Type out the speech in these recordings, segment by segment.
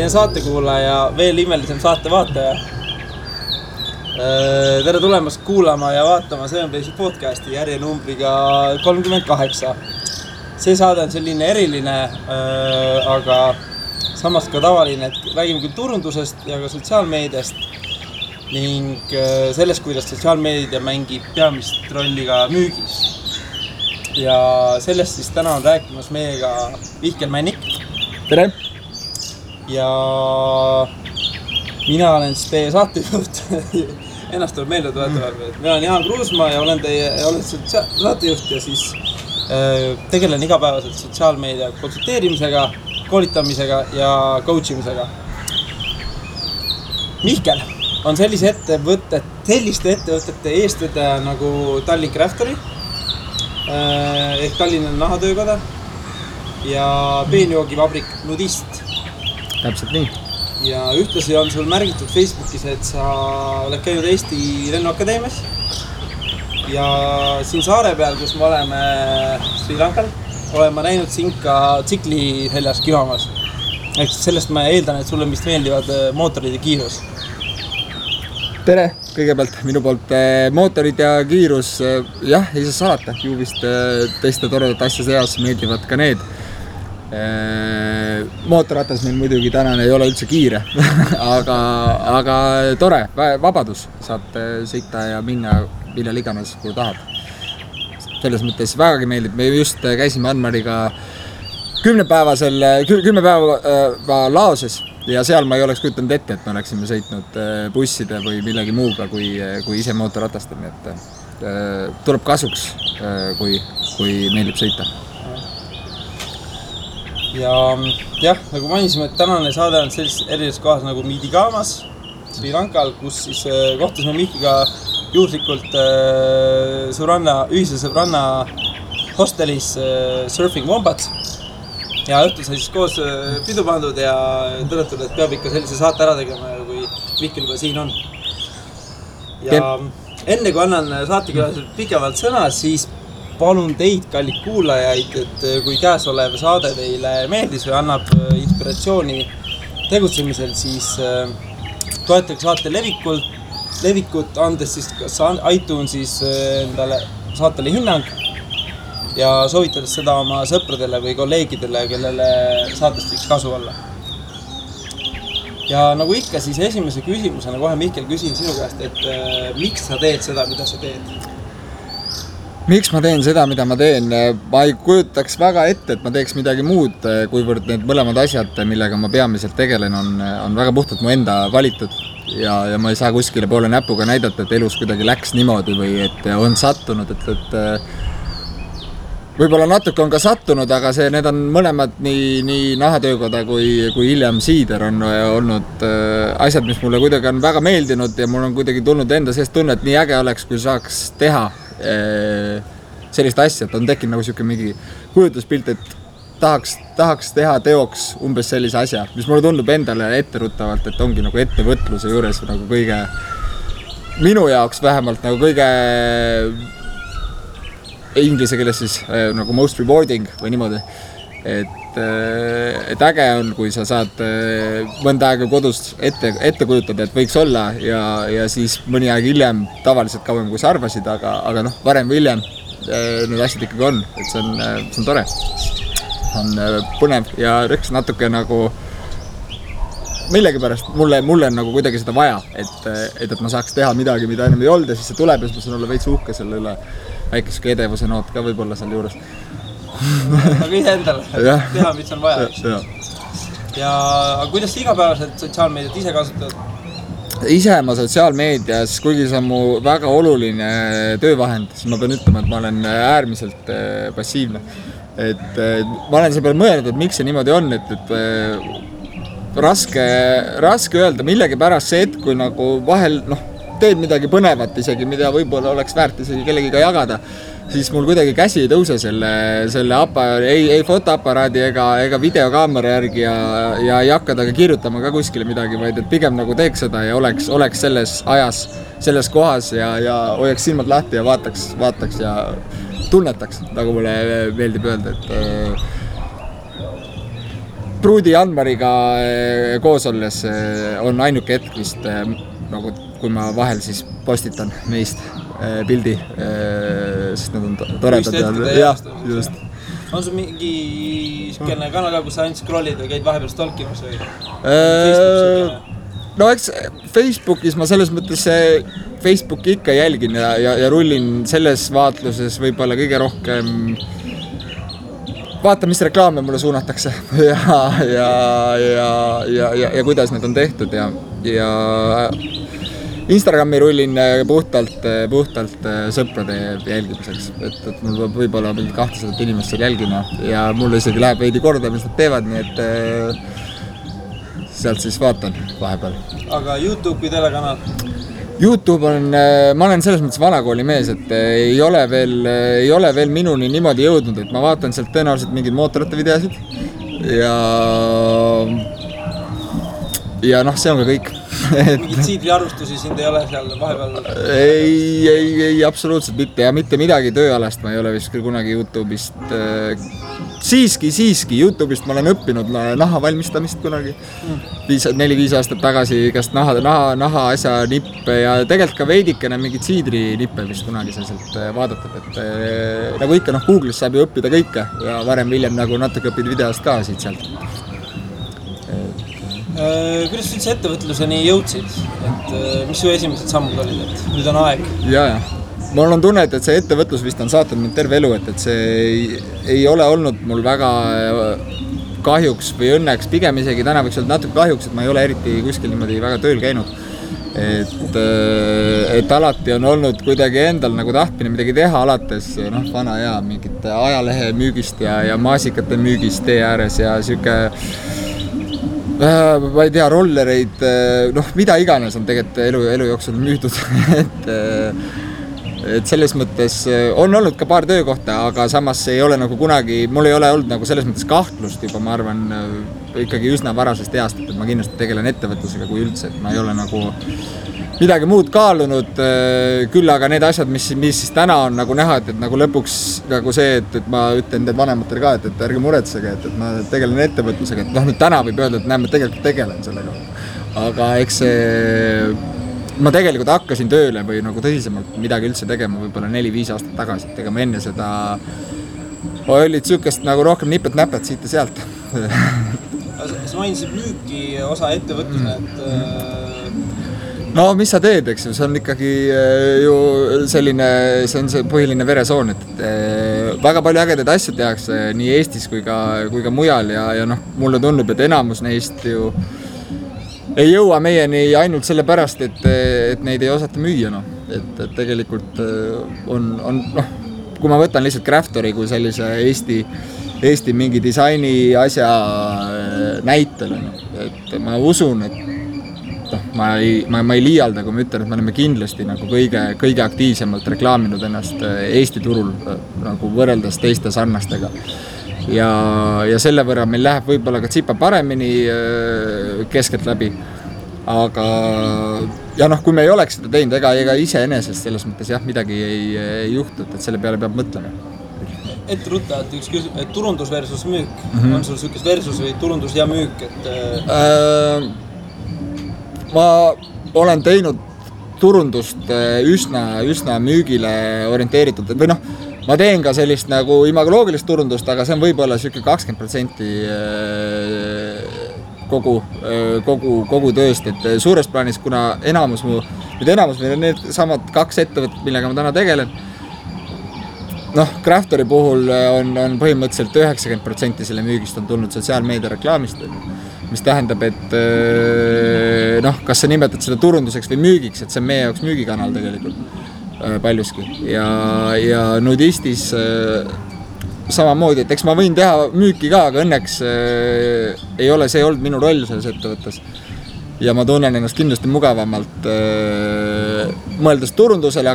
imeline saatekuulaja, veel imelisem saatevaataja. Tere tulemast kuulama ja vaatama Sevenplace'i podcasti järjenumbriga 38. See saade on selline eriline, aga samas ka tavaline, et räägime küll turundusest ja ka sotsiaalmeediast ning sellest, kuidas sotsiaalmeedia mängib peamist rolli ka müügis. Ja sellest siis täna on rääkimas meiega Mihkel Männik. Tere! Ja mina olen siis teie saatejuht. Ennast tuleb meelde tuletada. Mina olen Jaan Kruusmaa ja olen saatejuht ja siis tegelen igapäevaselt sotsiaalmeedia konsulteerimisega, koolitamisega ja coachimisega. Mihkel on selliste ettevõtete eestvedaja nagu Tallink Craftery ehk Tallinna nahatöökoda ja peenjoogivabrik Nudist. Täpselt nii. Ja ühtlasi on sul märgitud Facebookis, et sa oled käinud Eesti Lennuakadeemias ja siin saare peal, kus me oleme Sri Lankal, olen ma näinud sind ka tsikli seljas kivamas. Ehk sellest ma eeldan, et sulle vist meeldivad mootorid ja kiirus. Tere! Kõigepealt minu poolt mootorid ja kiirus, jah, ei saa salata, ju vist teiste toredat asja seas meeldivad ka need. Mootorratas meil muidugi tänane ei ole üldse kiire, aga tore, vabadus, saad sõita ja minna millal iganes, kui tahad. Selles mõttes vägagi meeldib, me just käisime Anmariga 10 päeva laoses ja seal ma ei oleks kujutanud ette, et me oleksime sõitnud busside või millegi muuga kui ise mootorratasta, nii et tuleb kasuks, kui meeldib sõita. Ja jah, nagu mainisime, et tänane saade on sellises erineses kohas nagu Midigamas, Sri Lankal, kus siis kohtasime Mihkiga juhuslikult ühise sõbranna hostelis Surfing Wombats. Ja õhtul sai siis koos pidu pandud ja tõdetud, et peab ikka sellise saate ära tegema, kui Mihkel juba siin on. Ja enne kui annan saatekülalisele pikemalt sõna, siis palun teid, kallid kuulajaid, et kui käesolev saade teile meeldis või annab inspiratsiooni tegutsemisel, siis toetage saate levikut, andes siis kas iTunesis endale saatele hinnang ja soovitades seda oma sõpradele või kolleegidele, kellele saatest võiks kasu olla. Ja nagu ikka, siis esimese küsimusena kohe Mihkel küsin sinu käest, et miks sa teed seda, mida sa teed? Miks ma teen seda, mida ma teen? Ma ei kujutaks väga ette, et ma teeks midagi muud, kuivõrd need mõlemad asjad, millega ma peamiselt tegelen, on väga puhtalt mu enda valitud ja ma ei saa kuskile poole näpuga näidata, et elus kuidagi läks niimoodi või et on sattunud, et võib-olla natuke on ka sattunud, aga need on mõlemad nii nahatöökoda kui hiljem Siider on olnud asjad, mis mulle kuidagi on väga meeldinud ja mul on kuidagi tulnud enda seest tunne, et nii äge oleks, kui saaks teha sellist asja, et on tekkinud nagu siuke mingi kujutuspilt, et tahaks teha teoks umbes sellise asja, mis mulle tundub endale etteruttavalt, et ongi nagu ettevõtluse juures nagu kõige, minu jaoks vähemalt nagu kõige inglise keeles siis nagu most rewarding või niimoodi, et äge on, kui sa saad mõnda aega kodus ette kujutada, et võiks olla ja siis mõni aeg hiljem, tavaliselt kauem kui sa arvasid, aga varem või hiljem need asjad ikkagi on, et see on tore, on põnev ja rõks natuke nagu millegipärast mulle on nagu kuidagi seda vaja, et ma saaks teha midagi, mida ennem ei olnud ja siis see tuleb ja siis ma saan olla veits uhke selle üle, väikesega edevuse noot ka võib-olla seal juures. Aga ise endale, teha, mis on vaja. Ja kuidas sa igapäevaselt sotsiaalmeediat ise kasutad? Ise ma sotsiaalmeedias, kuigi see on mu väga oluline töövahend, siis ma pean ütlema, et ma olen äärmiselt passiivne. Et ma olen selle peale mõelnud, et miks see niimoodi on, et raske öelda millegi pärast see, et kui nagu vahel teed midagi põnevat isegi, mida võib-olla oleks väärt isegi kellegiga jagada, siis mul kuidagi käsi ei tõuse selle ei fotoaparaadi ega videokaamera järgi ja ei hakka taga kirjutama ka kuskile midagi, vaid et pigem nagu teeks seda ja oleks selles ajas, selles kohas ja hoiaks silmad lahti ja vaataks ja tunnetaks, nagu mulle meeldib öelda, et Pruudi Janmariga koos olles on ainuke hetk vist nagu kui ma vahel siis postitan meist pildi, sest nad on toredad ja just. On sul mingi siukene kanal ka, kus sa ainult scrollid või käid vahepeal stalkimas või? No eks Facebookis ma selles mõttes Facebooki ikka jälgin ja rullin selles vaatluses võib-olla kõige rohkem vaata, mis reklaame mulle suunatakse ja kuidas need on tehtud ja Instagrami rullin puhtalt sõprade jälgimiseks, et mul peab võib-olla mingi 200 inimest seal jälgima ja mulle isegi läheb veidi korda, mis nad teevad, nii et sealt siis vaatan vahepeal. Aga YouTube või telekanal? YouTube on, ma olen selles mõttes vanakooli mees, et ei ole veel minuni niimoodi jõudnud, et ma vaatan sealt tõenäoliselt mingeid mootorite videosid ja noh, see on ka kõik. Mingid siidriarvustusi sind ei ole seal vahepeal? Ei, absoluutselt mitte ja mitte midagi tööalast ma ei ole vist küll kunagi YouTube'ist. Siiski, YouTube'ist ma olen õppinud naha valmistamist kunagi 4-5 aastat tagasi, igast naha asja nippe ja tegelikult ka veidikene mingid siidri nippe vist kunagi sealt vaadatud, et nagu ikka Google'is saab ju õppida kõike ja varem-hiljem nagu natuke õpid videost ka siit sealt. Kuidas üldse ettevõtluseni jõudsid? Et mis su esimesed sammud olid, et nüüd on aeg? Ja. Mul on tunne, et see ettevõtlus vist on saatnud mind terve elu, et see ei ole olnud mul väga kahjuks või õnneks, pigem isegi täna võiks olla natuke kahjuks, et ma ei ole eriti kuskil niimoodi väga tööl käinud. Et alati on olnud kuidagi endal nagu tahtmine midagi teha, alates vana ja mingite ajalehe müügist ja maasikate müügist tee ääres ja siuke ma ei tea, rollereid, mida iganes on tegelikult elu jooksul müüdud, et selles mõttes on olnud ka paar töökohta, aga samas ei ole nagu kunagi, mul ei ole olnud nagu selles mõttes kahtlust juba, ma arvan, ikkagi üsna varasest east, et ma kindlasti tegelen ettevõtlusega kui üldse, et ma ei ole nagu midagi muud kaalunud, küll aga need asjad, mis siis täna on nagu näha, et nagu lõpuks nagu see, et ma ütlen need vanematele ka, et ärge muretsege, et ma tegelen ettevõtlusega, et nüüd täna võib öelda, et näe, ma tegelikult tegelen sellega. Aga eks ma tegelikult hakkasin tööle või nagu tõsisemalt midagi üldse tegema võib-olla 4-5 aastat tagasi, et ega ma enne seda olid sükest nagu rohkem nipet-näpet siit ja sealt. Sa mainisid müüki osa ettevõtlusena, et no mis sa teed, eks ju, see on ikkagi ju selline, see on see põhiline veresoon, et väga palju ägedaid asju tehakse nii Eestis kui ka mujal ja mulle tundub, et enamus neist ju ei jõua meieni ainult selle pärast, et neid ei osata müüa, et tegelikult on kui ma võtan lihtsalt Craftori kui sellise Eesti mingi disaini asja näitel, et ma usun, et ma ei liialda, kui ma ütlen, et me oleme kindlasti nagu kõige aktiivsemalt reklaaminud ennast Eesti turul nagu võrreldes teiste sarnastega. Ja selle võrra meil läheb võib-olla ka tsipa paremini keskelt läbi. Aga ja kui me ei oleks seda teinud, ega iseenesest selles mõttes midagi ei juhtu, et selle peale peab mõtlema. Ette ruttavalt üks küsimus, et turundus versus müük. On sul sükes versus või turundus ja müük? Ma olen teinud turundust üsna müügile orienteeritud, või ma teen ka sellist nagu imagoloogilist turundust, aga see on võib-olla siuke 20% kogu tööst, et suures plaanis, kuna enamus meil on need samad 2 ettevõtted, millega ma täna tegelen, Craftori puhul on põhimõtteliselt 90% selle müügist on tulnud sotsiaalmeedia reklaamist, mis tähendab, et kas sa nimetad seda turunduseks või müügiks, et see on meie jaoks müügikanal tegelikult paljuski ja nudistis samamoodi, et eks ma võin teha müüki ka, aga õnneks ei ole see olnud minu roll selles ettevõttes ja ma tunnen ennast kindlasti mugavamalt mõeldes turundusele,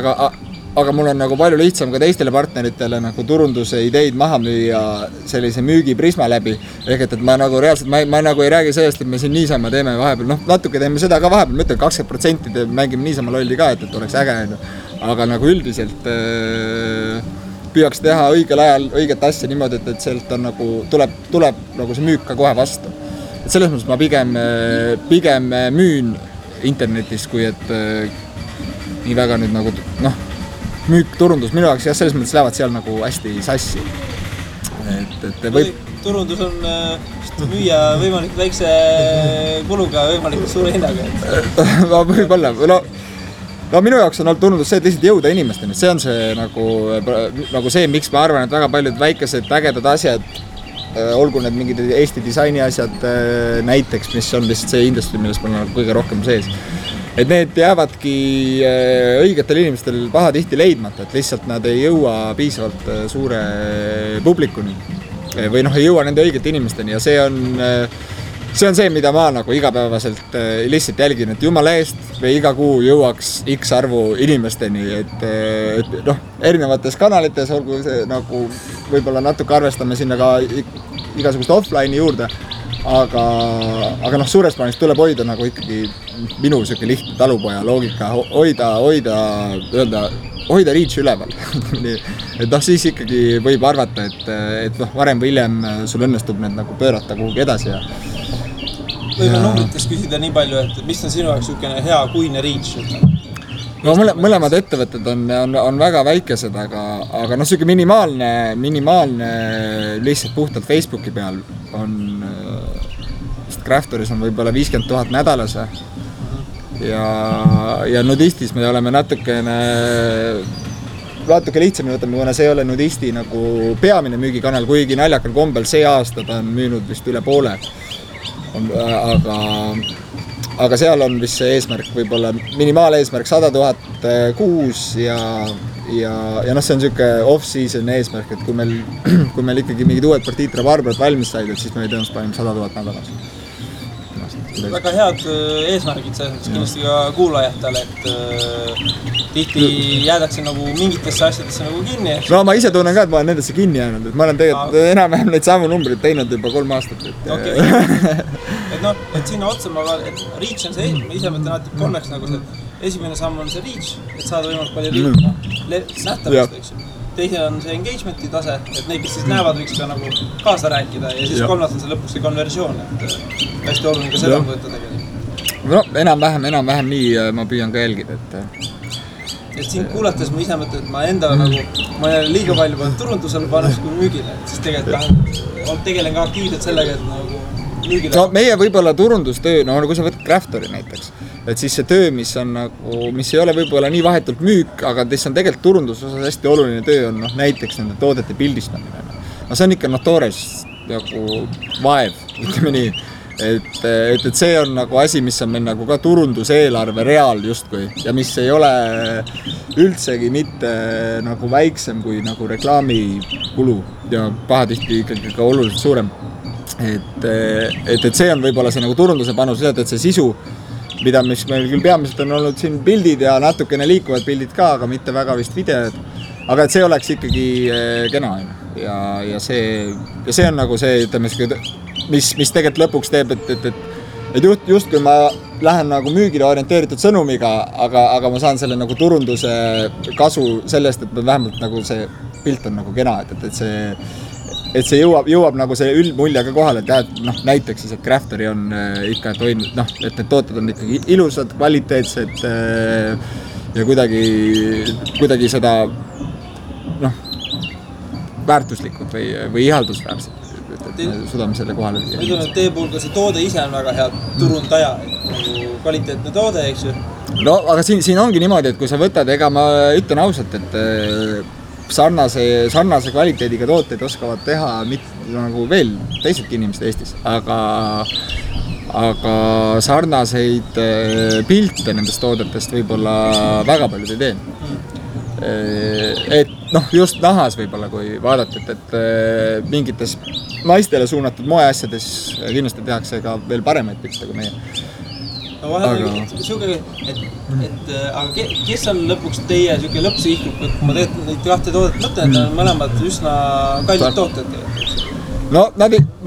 aga mul on nagu palju lihtsam ka teistele partneritele nagu turunduse ideid maha müüa sellise müügiprisma läbi. Ehk et ma nagu reaalselt, ma nagu ei räägi sellest, et me siin niisama teeme vahepeal, natuke teeme seda ka vahepeal, ma ütlen 20% mängime niisama lolli ka, et oleks äge. Aga nagu üldiselt püüaks teha õigel ajal õiget asja niimoodi, et sealt on nagu, tuleb nagu see müük ka kohe vastu. et selles mõttes ma pigem müün internetis, kui et nii väga nüüd nagu noh, müük, turundus minu jaoks jah, selles mõttes lähevad seal nagu hästi sassi. Et võib... Turundus on müüa võimalikult väikse kuluga võimalikult suure hinnaga. Võib-olla. No minu jaoks on olnud turundus see, et lihtsalt jõuda inimesteni. See on see nagu see, miks ma arvan, et väga paljud väikesed ägedad asjad, olgu need mingid Eesti disaini asjad näiteks, mis on lihtsalt see industry, milles ma olen kõige rohkem sees. Et need jäävadki õigetel inimestel pahatihti leidmata, et lihtsalt nad ei jõua piisavalt suure publikuni või noh, ei jõua nende õigete inimesteni ja see on see, mida ma nagu igapäevaselt lihtsalt jälgin, et jumala eest või iga kuu jõuaks X arvu inimesteni, et noh, erinevates kanalites, olgu see nagu võib-olla natuke arvestame sinna ka igasugust offline'i juurde, aga noh, suures plaanis tuleb hoida nagu ikkagi minu selline lihtne talupoja loogika, hoida reach üleval. Et noh, siis ikkagi võib arvata, et noh, varem või hiljem sul õnnestub need nagu pöörata kuhugi edasi ja võime numbrites küsida nii palju, et mis on sinu jaoks niisugune hea kuine reach? No mõlemad ettevõtted on väga väikesed, aga noh, siuke minimaalne lihtsalt puhtalt Facebooki peal on Craftoris on võib-olla 50 000 nädalas ja Nudistis me oleme natuke lihtsamini võtame, kuna see ei ole Nudisti nagu peamine müügikanal, kuigi naljakal kombel see aasta ta on müünud vist üle poole. Aga seal on vist see eesmärk võib-olla minimaaleesmärk 100 000 kuus ja noh, see on siuke off-season eesmärk, et kui meil ikkagi mingid uued partiid rabarberid valmis said, et siis me tõenäoliselt panime 100 000 nädalas. Väga head eesmärgid selles kindlasti ka kuulajatele, et tihti jäädakse nagu mingitesse asjadesse nagu kinni. No ma ise tunnen ka, et ma olen nendesse kinni jäänud, et ma olen tegelikult enam-vähem neid samu numbrid teinud juba 3 aastat. Et noh, et sinna otsa et reach on see, ma ise mõtlen alati kolmeks nagu see, esimene samm on see reach, et saada võimalik palju nähtavust, eks ju. Teise on see engagementi tase, et neid, kes siis näevad, võiks ka nagu kaasa rääkida ja siis kolmas on see lõpuks see konversioon, et hästi oluline ka seda võtta tegelikult. No, enam-vähem nii ma püüan ka jälgida, et siin kuulates ma ise mõtlen, et ma enda nagu, ma olen liiga palju pannud turundusel paneks kui müügile, et siis tegelikult tegelen ka aktiivselt sellega, et nagu müügile. No meie võib-olla turundustöö, no kui sa võtad Craftori näiteks, et siis see töö, mis ei ole võib-olla nii vahetult müük, aga mis on tegelikult turundusosas hästi oluline töö on näiteks nende toodete pildistamine. No see on ikka toores nagu vaev, ütleme nii. Et see on nagu asi, mis on meil nagu ka turunduseelarve reaal justkui ja mis ei ole üldsegi mitte nagu väiksem kui nagu reklaamikulu ja pahatihti ikkagi ka oluliselt suurem. Et see on võib-olla see nagu turunduse panus, et see sisu, mida mis meil küll peamiselt on olnud siin pildid ja natukene liikuvad pildid ka, aga mitte väga vist videod, aga et see oleks ikkagi kena ja see on nagu see, ütleme, mis tegelikult lõpuks teeb, et just kui ma lähen nagu müügile orienteeritud sõnumiga, aga ma saan selle nagu turunduse kasu sellest, et vähemalt nagu see pilt on nagu kena, et see jõuab nagu see üldmulje ka kohale, et noh, näiteks siis, et Craftori on ikka toinud, noh, et need tooted on ikkagi ilusad, kvaliteetsed ja kuidagi seda noh, väärtuslikud või ihaldusväärsed, et suudame selle kohale. Ma ütlen, et teie puhul ka see toode ise on väga hea turundaja, kvaliteetne toode, eks ju? No, aga siin ongi niimoodi, et kui sa võtad, ega ma ütlen ausalt, et sarnase kvaliteediga tooteid oskavad teha nagu veel teisedki inimesed Eestis, aga sarnaseid pilte nendest toodetest võib-olla väga paljud ei tee. Et noh, just nahas võib-olla, kui vaadata, et mingites naistele suunatud moeasjades kindlasti tehakse ka veel paremaid pilte kui meie. No vahel aga kes on lõpuks teie lõppsihik, kui ma tegelikult neid kahte toodet mõtlen, et on mõlemad üsna kallid tooted? No ma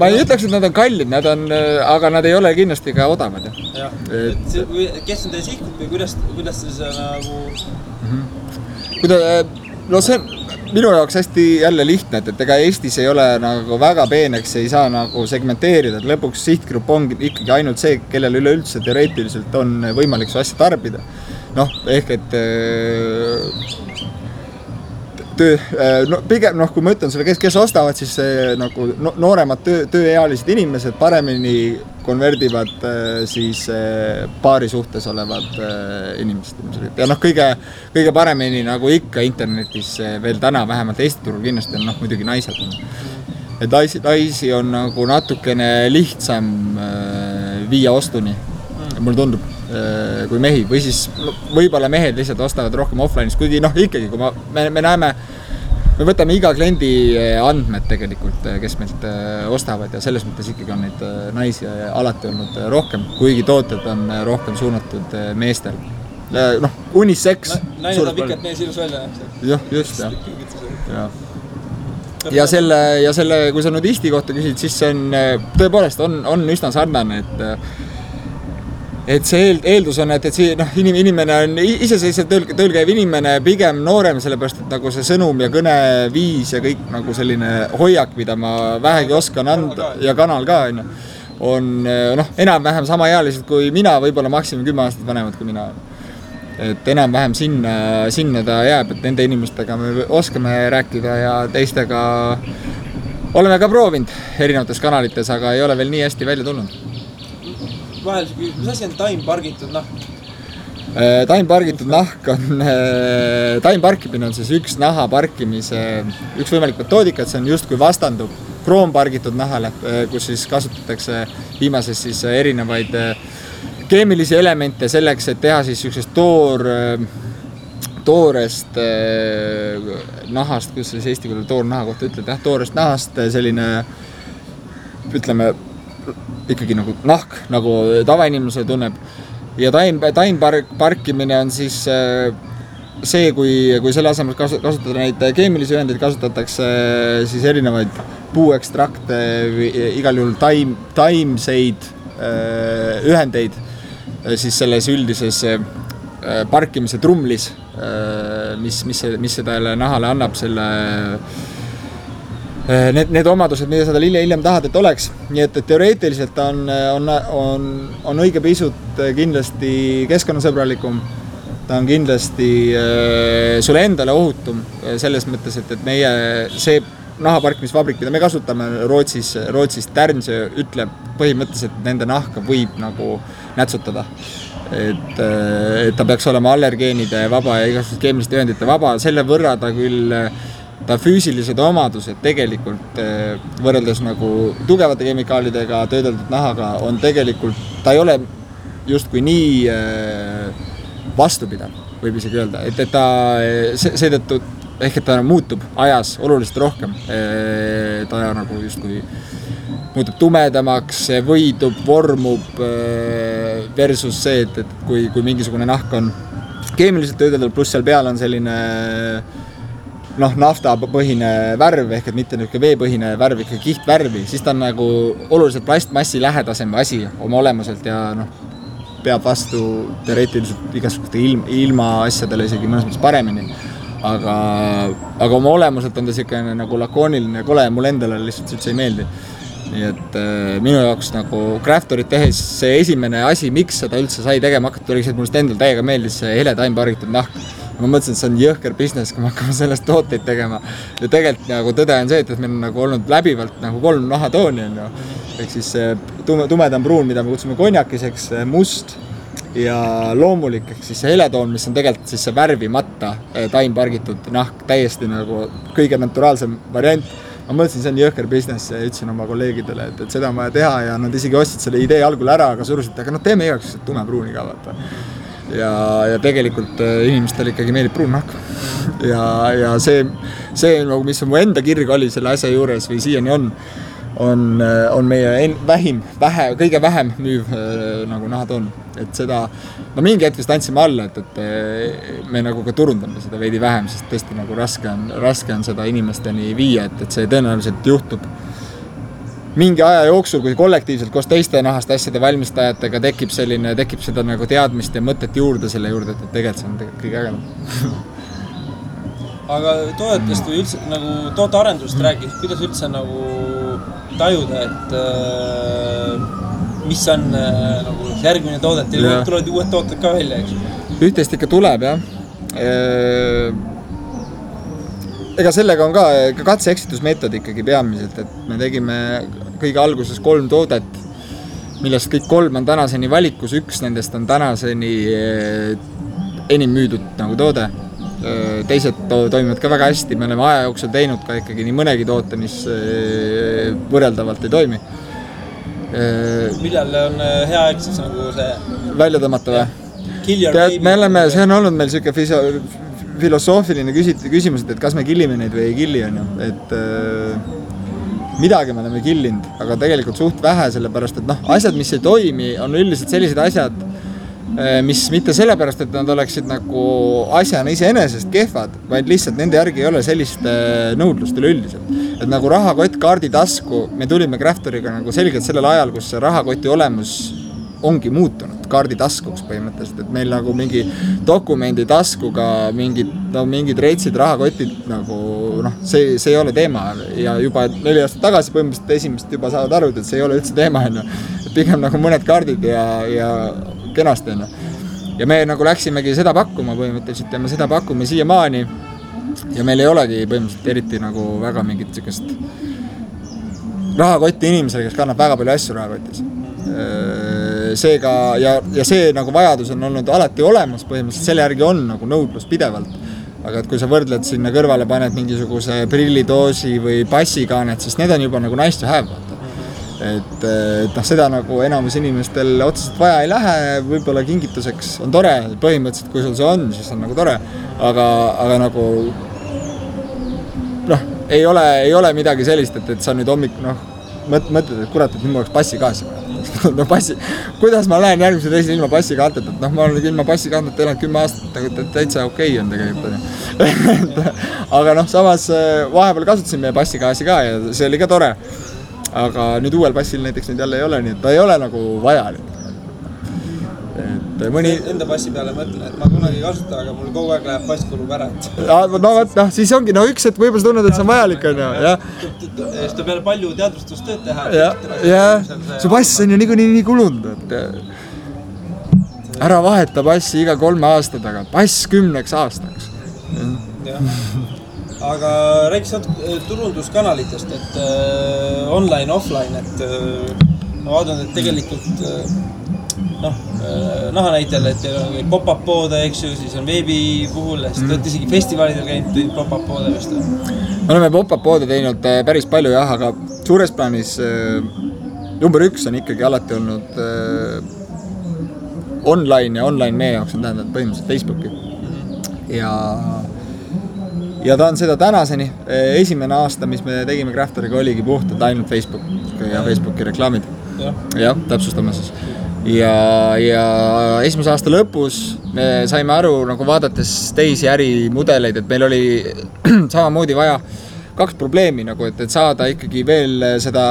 ei ütleks, et nad on kallid, aga nad ei ole kindlasti ka odavad. Kes on teie sihkud või kuidas siis nagu... no see minu jaoks hästi jälle lihtne, et ega Eestis ei ole nagu väga peeneks, ei saa nagu segmenteerida, et lõpuks sihtgrupp ongi ikkagi ainult see, kellel üleüldse teoreetiliselt on võimalik su asja tarbida. Noh, ehk et pigem, kui ma ütlen selle, kes ostavad, siis nagu nooremad tööealised inimesed paremini konverdivad siis paari suhtes olevad inimesed. Ja kõige paremini nagu ikka internetis veel täna, vähemalt Eesti turul kindlasti on muidugi naised. Et naisi on nagu natukene lihtsam viia ostuni, mulle tundub, kui mehi. Või siis võib-olla mehed lihtsalt ostavad rohkem offline'is, kuigi ikkagi, kui me näeme, me võtame iga kliendi andmed tegelikult, kes meilt ostavad ja selles mõttes ikkagi on neid naisi alati olnud rohkem, kuigi tooted on rohkem suunatud meestel. Unisex. Naine tahab ikka, et mees ilus välja näeb. Jah, just, jah. Ja selle, kui sa nudisti kohta küsid, siis see on, tõepoolest on üsna sarnane, et see eeldus on, et see inimene on iseseisvalt tööl käiv inimene, pigem noorem, sellepärast, et nagu see sõnum ja kõne viis ja kõik nagu selline hoiak, mida ma vähegi oskan anda ja kanal ka on enam-vähem samaealised kui mina, võib-olla maksimum 10 aastat vanemad kui mina. Et enam-vähem sinna ta jääb, et nende inimestega me oskame rääkida ja teistega oleme ka proovinud erinevates kanalites, aga ei ole veel nii hästi välja tulnud. Vahel see küsimus, mis asi on taimpargitud nahk? Taimpargitud nahk on, taimparkimine on siis üks naha parkimise, üks võimalik metoodika, et see on just kui vastandub kroompargitud nahale, kus siis kasutatakse viimases siis erinevaid keemilisi elemente selleks, et teha siis üksteist toorest nahast, kus siis eesti keeles toornaha kohta ütled, toorest nahast selline, ütleme, ikkagi nagu nahk, nagu tavainimese tunneb. Ja taimparkimine on siis see, kui selle asemel kasutada neid keemilisi ühendeid, kasutatakse siis erinevaid puuekstrakte, igal juhul taimseid ühendeid siis selles üldises parkimise trumlis, mis seda nahale annab selle need omadused, mida sa hiljem tahad, et oleks. Nii et teoreetiliselt on õige pisut kindlasti keskkonnasõbralikum. Ta on kindlasti sulle endale ohutum selles mõttes, et meie see nahaparkimisvabrik, mida me kasutame Rootsis Tärnsö ütleb põhimõtteliselt, et nende nahka võib nagu nätsutada. Et ta peaks olema allergeenide vaba ja igasugust keemiliste ühendite vaba. Selle võrra ta küll ta füüsilised omadused tegelikult võrreldes nagu tugevate kemikaalidega töödeldud nahaga on tegelikult, ta ei ole justkui nii vastupidav, võib isegi öelda, et ta seetõttu ehk et ta muutub ajas oluliselt rohkem. Ta nagu justkui muutub tumedamaks, võidub, vormub versus see, et kui mingisugune nahk on keemiliselt töödeldud, pluss seal peal on selline naftapõhine värv, ehk et mitte veepõhine värv, ikka kihtvärvi, siis ta on nagu oluliselt plastmassi lähedasem asi oma olemuselt ja peab vastu teoreetiliselt igasuguste ilma asjadele isegi mõnes mõttes paremini. Aga oma olemuselt on ta selline nagu lakooniline ja kole ja mulle endale lihtsalt üldse ei meeldi. Nii et minu jaoks nagu Craftorit tehes see esimene asi, miks seda üldse sai tegema hakata, oli see, et mulle endal täiega meeldis see hele taimpargitud nahk. Ma mõtlesin, et see on jõhker business, kui me hakkame sellest tooteid tegema. Ja tegelikult nagu tõde on see, et meil on nagu olnud läbivalt nagu 3 nahatooni on ju. Ehk siis tumedam pruun, mida me kutsume konjakiseks, must ja loomulik, ehk siis see heletoon, mis on tegelikult siis see värvimata taimpargitud nahk, täiesti nagu kõige naturaalsem variant. Ma mõtlesin, see on jõhker business ja ütlesin oma kolleegidele, et seda on vaja teha ja nad isegi ostsid selle idee algul ära, aga surusid, aga teeme igaks tumepruuni ka vaata. Ja tegelikult inimestele ikkagi meeldib pruun nahk. Ja see nagu, mis mu enda kirg oli selle asja juures või siiani on meie kõige vähem müüv nagu nahatoon. Et seda, mingi hetk vist andsime alla, et me nagu ka turundame seda veidi vähem, sest tõesti nagu raske on seda inimesteni viia, et see tõenäoliselt juhtub mingi aja jooksul, kui kollektiivselt koos teiste nahast asjade valmistajatega tekib seda nagu teadmist ja mõtet juurde selle juurde, et tegelikult see on kõige ägedam. aga toodetest või üldse nagu tootearendusest rääkides, kuidas üldse nagu tajuda, et mis on nagu järgmine toodet ja tulevad uued tooted ka välja, eks? Ühtest ikka tuleb, jah. Ega sellega on ka katse-eksitusmeetod ikkagi peamiselt, et me tegime kõige alguses 3 toodet, millest kõik 3 on tänaseni valikus, 1 nendest on tänaseni enim müüdud nagu toode. Teised toimivad ka väga hästi, me oleme aja jooksul teinud ka ikkagi nii mõnegi toote, mis võrreldavalt ei toimi. Millal on hea aeg siis nagu see välja tõmmata või? Me oleme, see on olnud meil selline filosoofiline küsimus, et kas me killime neid või ei killi, on ju. Et midagi me oleme killinud, aga tegelikult suht vähe, sellepärast, et asjad, mis ei toimi, on üldiselt sellised asjad, mis mitte sellepärast, et nad oleksid nagu asjana iseenesest kehvad, vaid lihtsalt nende järgi ei ole sellist nõudlust üleüldiselt. Et nagu rahakott kaardi tasku, me tulime Craftoriga nagu selgelt sellel ajal, kus see rahakoti olemus ongi muutunud kaardi taskuks põhimõtteliselt, et meil nagu mingi dokumendi taskuga mingid reitsid rahakotid nagu see ei ole teema ja juba 4 aastat tagasi põhimõtteliselt esimest juba saavad aru, et see ei ole üldse teema, et pigem nagu mõned kaardid ja kenasti, ja me nagu läksimegi seda pakkuma põhimõtteliselt ja me seda pakume siiamaani ja meil ei olegi põhimõtteliselt eriti nagu väga mingit sellist rahakotti inimesele, kes kannab väga palju asju rahakotis. Seega, ja see nagu vajadus on olnud alati olemas, põhimõtteliselt selle järgi on nagu nõudlus pidevalt. Aga et kui sa võrdled sinna kõrvale, paned mingisuguse prillidoosi või passikaanet, siis need on juba nagu nice to have. Et seda nagu enamus inimestel otseselt vaja ei lähe, võib-olla kingituseks on tore, põhimõtteliselt kui sul see on, siis on nagu tore, aga nagu ei ole midagi sellist, et sa nüüd hommik mõtled, et kurat, et nüüd ma oleks passikaasi kuidas ma lähen järgmise teisel ilma passikaanteta, et ma olen ilma passikaanteta elanud 10 aastat, täitsa okei on tegelikult. Aga samas vahepeal kasutasin meie passikaasi ka ja see oli ka tore. Aga nüüd uuel passil näiteks nüüd jälle ei ole, nii et ta ei ole nagu vajalik. Enda passi peale mõtlen, et ma kunagi ei kasuta, aga mul kogu aeg läheb pass kulub ära. Siis ongi, üks, et võib-olla sa tunned, et see on vajalik, on ju. Seda peale palju teadvustustööd teha. See pass on ju nii kulunud. Ära vaheta passi iga 3 aasta taga. Pass 10 aastaks. Aga rääkis turunduskanalitest, et online, offline, et ma vaatan, et tegelikult naha näitel, et teil on pop-up poode, eks ju, siis on veebi puhul, siis te olete isegi festivalidel käinud pop-up poode vist. Me oleme pop-up poode teinud päris palju jah, aga suures plaanis number 1 on ikkagi alati olnud online ja online meie jaoks on tähendab põhimõtteliselt Facebooki. Ja ta on seda tänaseni. Esimene aasta, mis me tegime Craftoriga, oligi puhtalt ainult Facebook ja Facebooki reklaamid. Jah, täpsustame siis. Ja esimese aasta lõpus me saime aru, nagu vaadates teisi ärimudeleid, et meil oli samamoodi vaja 2 probleemi, nagu, et saada ikkagi veel seda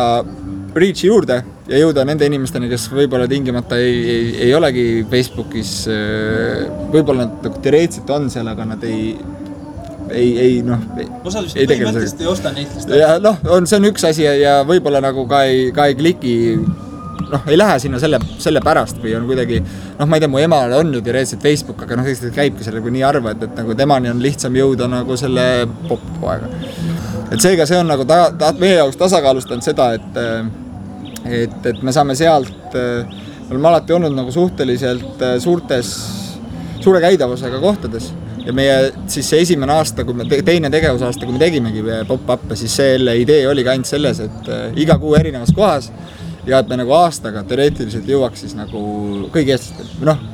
reach'i juurde ja jõuda nende inimesteni, kes võib-olla tingimata ei olegi Facebookis, võib-olla nad teoreetiliselt on seal, aga nad osad vist põhimõtteliselt ei osta neitlist. Ja see on üks asi ja võib-olla nagu ka ei kliki, ei lähe sinna selle pärast või on kuidagi, ma ei tea, mu emal on ju teoreetiliselt Facebook, aga tegelikult käibki selle kui nii harva, et nagu temani on lihtsam jõuda nagu selle pop-poega. Et seega see on nagu meie jaoks tasakaalustanud seda, et me saame sealt, me oleme alati olnud nagu suhteliselt suure käidavusega kohtades ja meie siis see esimene aasta, teine tegevusaasta, kui me tegimegi pop-up'e, siis selle idee oligi ainult selles, et iga kuu erinevas kohas ja et me nagu aastaga teoreetiliselt jõuaks siis nagu kõigi eestlastel,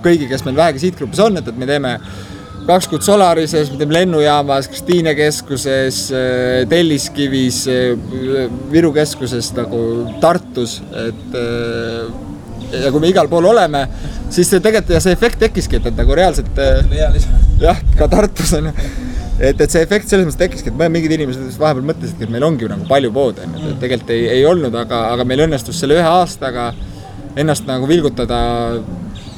kõigi, kes meil vähegi siitgrupis on, et me teeme 2 kuud Solarises, me teeme lennujaamas, Kristiine keskuses, Telliskivis, Viru keskuses, nagu Tartus, ja kui me igal pool oleme, siis tegelikult ja see efekt tekkiski, et nagu reaalselt jah, ka Tartus on et see efekt selles mõttes tekkiski, et mingid inimesed vahepeal mõtlesidki, et meil ongi nagu palju poode, et tegelikult ei olnud, aga meil õnnestus selle 1 aastaga ennast nagu vilgutada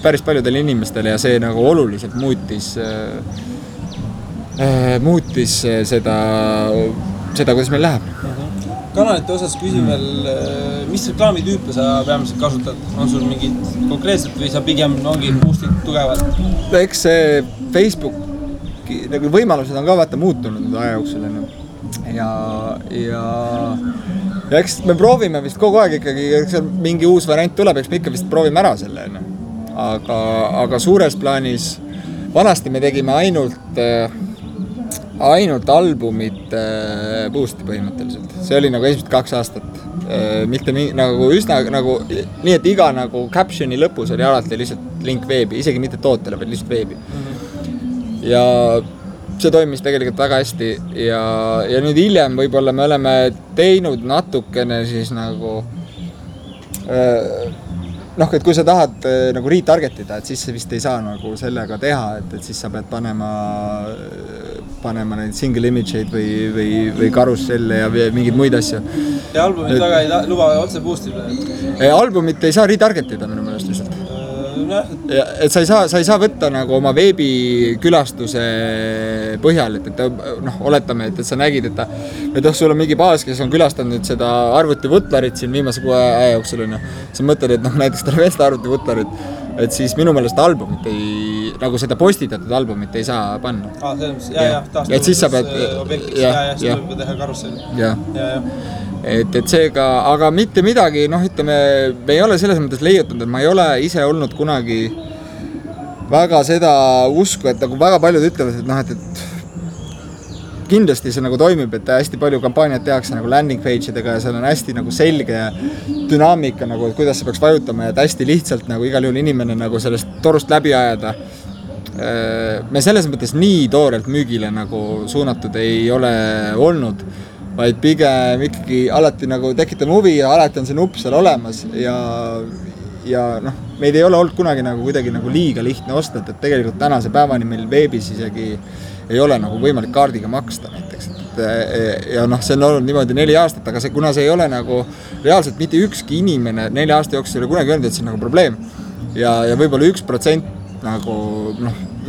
päris paljudele inimestele ja see nagu oluliselt muutis muutis seda, kuidas meil läheb. Kanalite osas küsin veel, mis reklaamitüüpe sa peamiselt kasutad? On sul mingid konkreetselt või sa pigem ongi boostid tugevad? Eks see Facebooki nagu võimalused on ka vaata muutunud aja jooksul. Ja eks me proovime vist kogu aeg ikkagi, mingi uus variant tuleb, eks me ikka vist proovime ära selle. Aga suures plaanis vanasti me tegime ainult albumit boosti põhimõtteliselt. See oli nagu esimesed 2 aastat. Mitte nagu üsna nagu nii, et iga nagu captioni lõpus oli alati lihtsalt link veebi, isegi mitte tootele, vaid lihtsalt veebi. Ja see toimis tegelikult väga hästi ja nüüd hiljem võib-olla me oleme teinud natukene siis nagu et kui sa tahad nagu retargetida, et siis sa vist ei saa nagu sellega teha, et siis sa pead panema neid single image'id või karusselle ja mingeid muid asju. Ja albumit väga ei luba otse boostile? Albumit ei saa retargetida minu meelest lihtsalt. Et sa ei saa võtta nagu oma veebikülastuse põhjal, et oletame, et sa nägid, et sul on mingi baas, kes on külastanud seda arvuti Vutlarit siin viimase 6 aja jooksul, sa mõtled, et näiteks tal vesta arvuti Vutlarit, et siis minu meelest albumit ei, nagu seda postitatud albumit ei saa panna. Et siis sa pead siis tuleb teha karusselli. Et seega, aga mitte midagi, ütleme, me ei ole selles mõttes leiutanud, et ma ei ole ise olnud kunagi väga seda usku, et nagu väga paljud ütlevad, et kindlasti see nagu toimib, et hästi palju kampaaniat tehakse nagu landing page idega ja seal on hästi nagu selge dünaamika, nagu, et kuidas see peaks vajutama ja et hästi lihtsalt nagu igal juhul inimene nagu sellest torust läbi ajada. Me selles mõttes nii toorelt müügile nagu suunatud ei ole olnud, vaid pigem ikkagi alati nagu tekitame huvi ja alati on see nupp seal olemas ja meid ei ole olnud kunagi nagu kuidagi nagu liiga lihtne osta, et tegelikult tänase päevani meil veebis isegi ei ole nagu võimalik kaardiga maksta näiteks. Ja see on olnud niimoodi 4 aastat, aga kuna see ei ole nagu reaalselt mitte ükski inimene 4 aasta jooksul ei ole kunagi öelnud, et see on nagu probleem ja võib-olla 1% nagu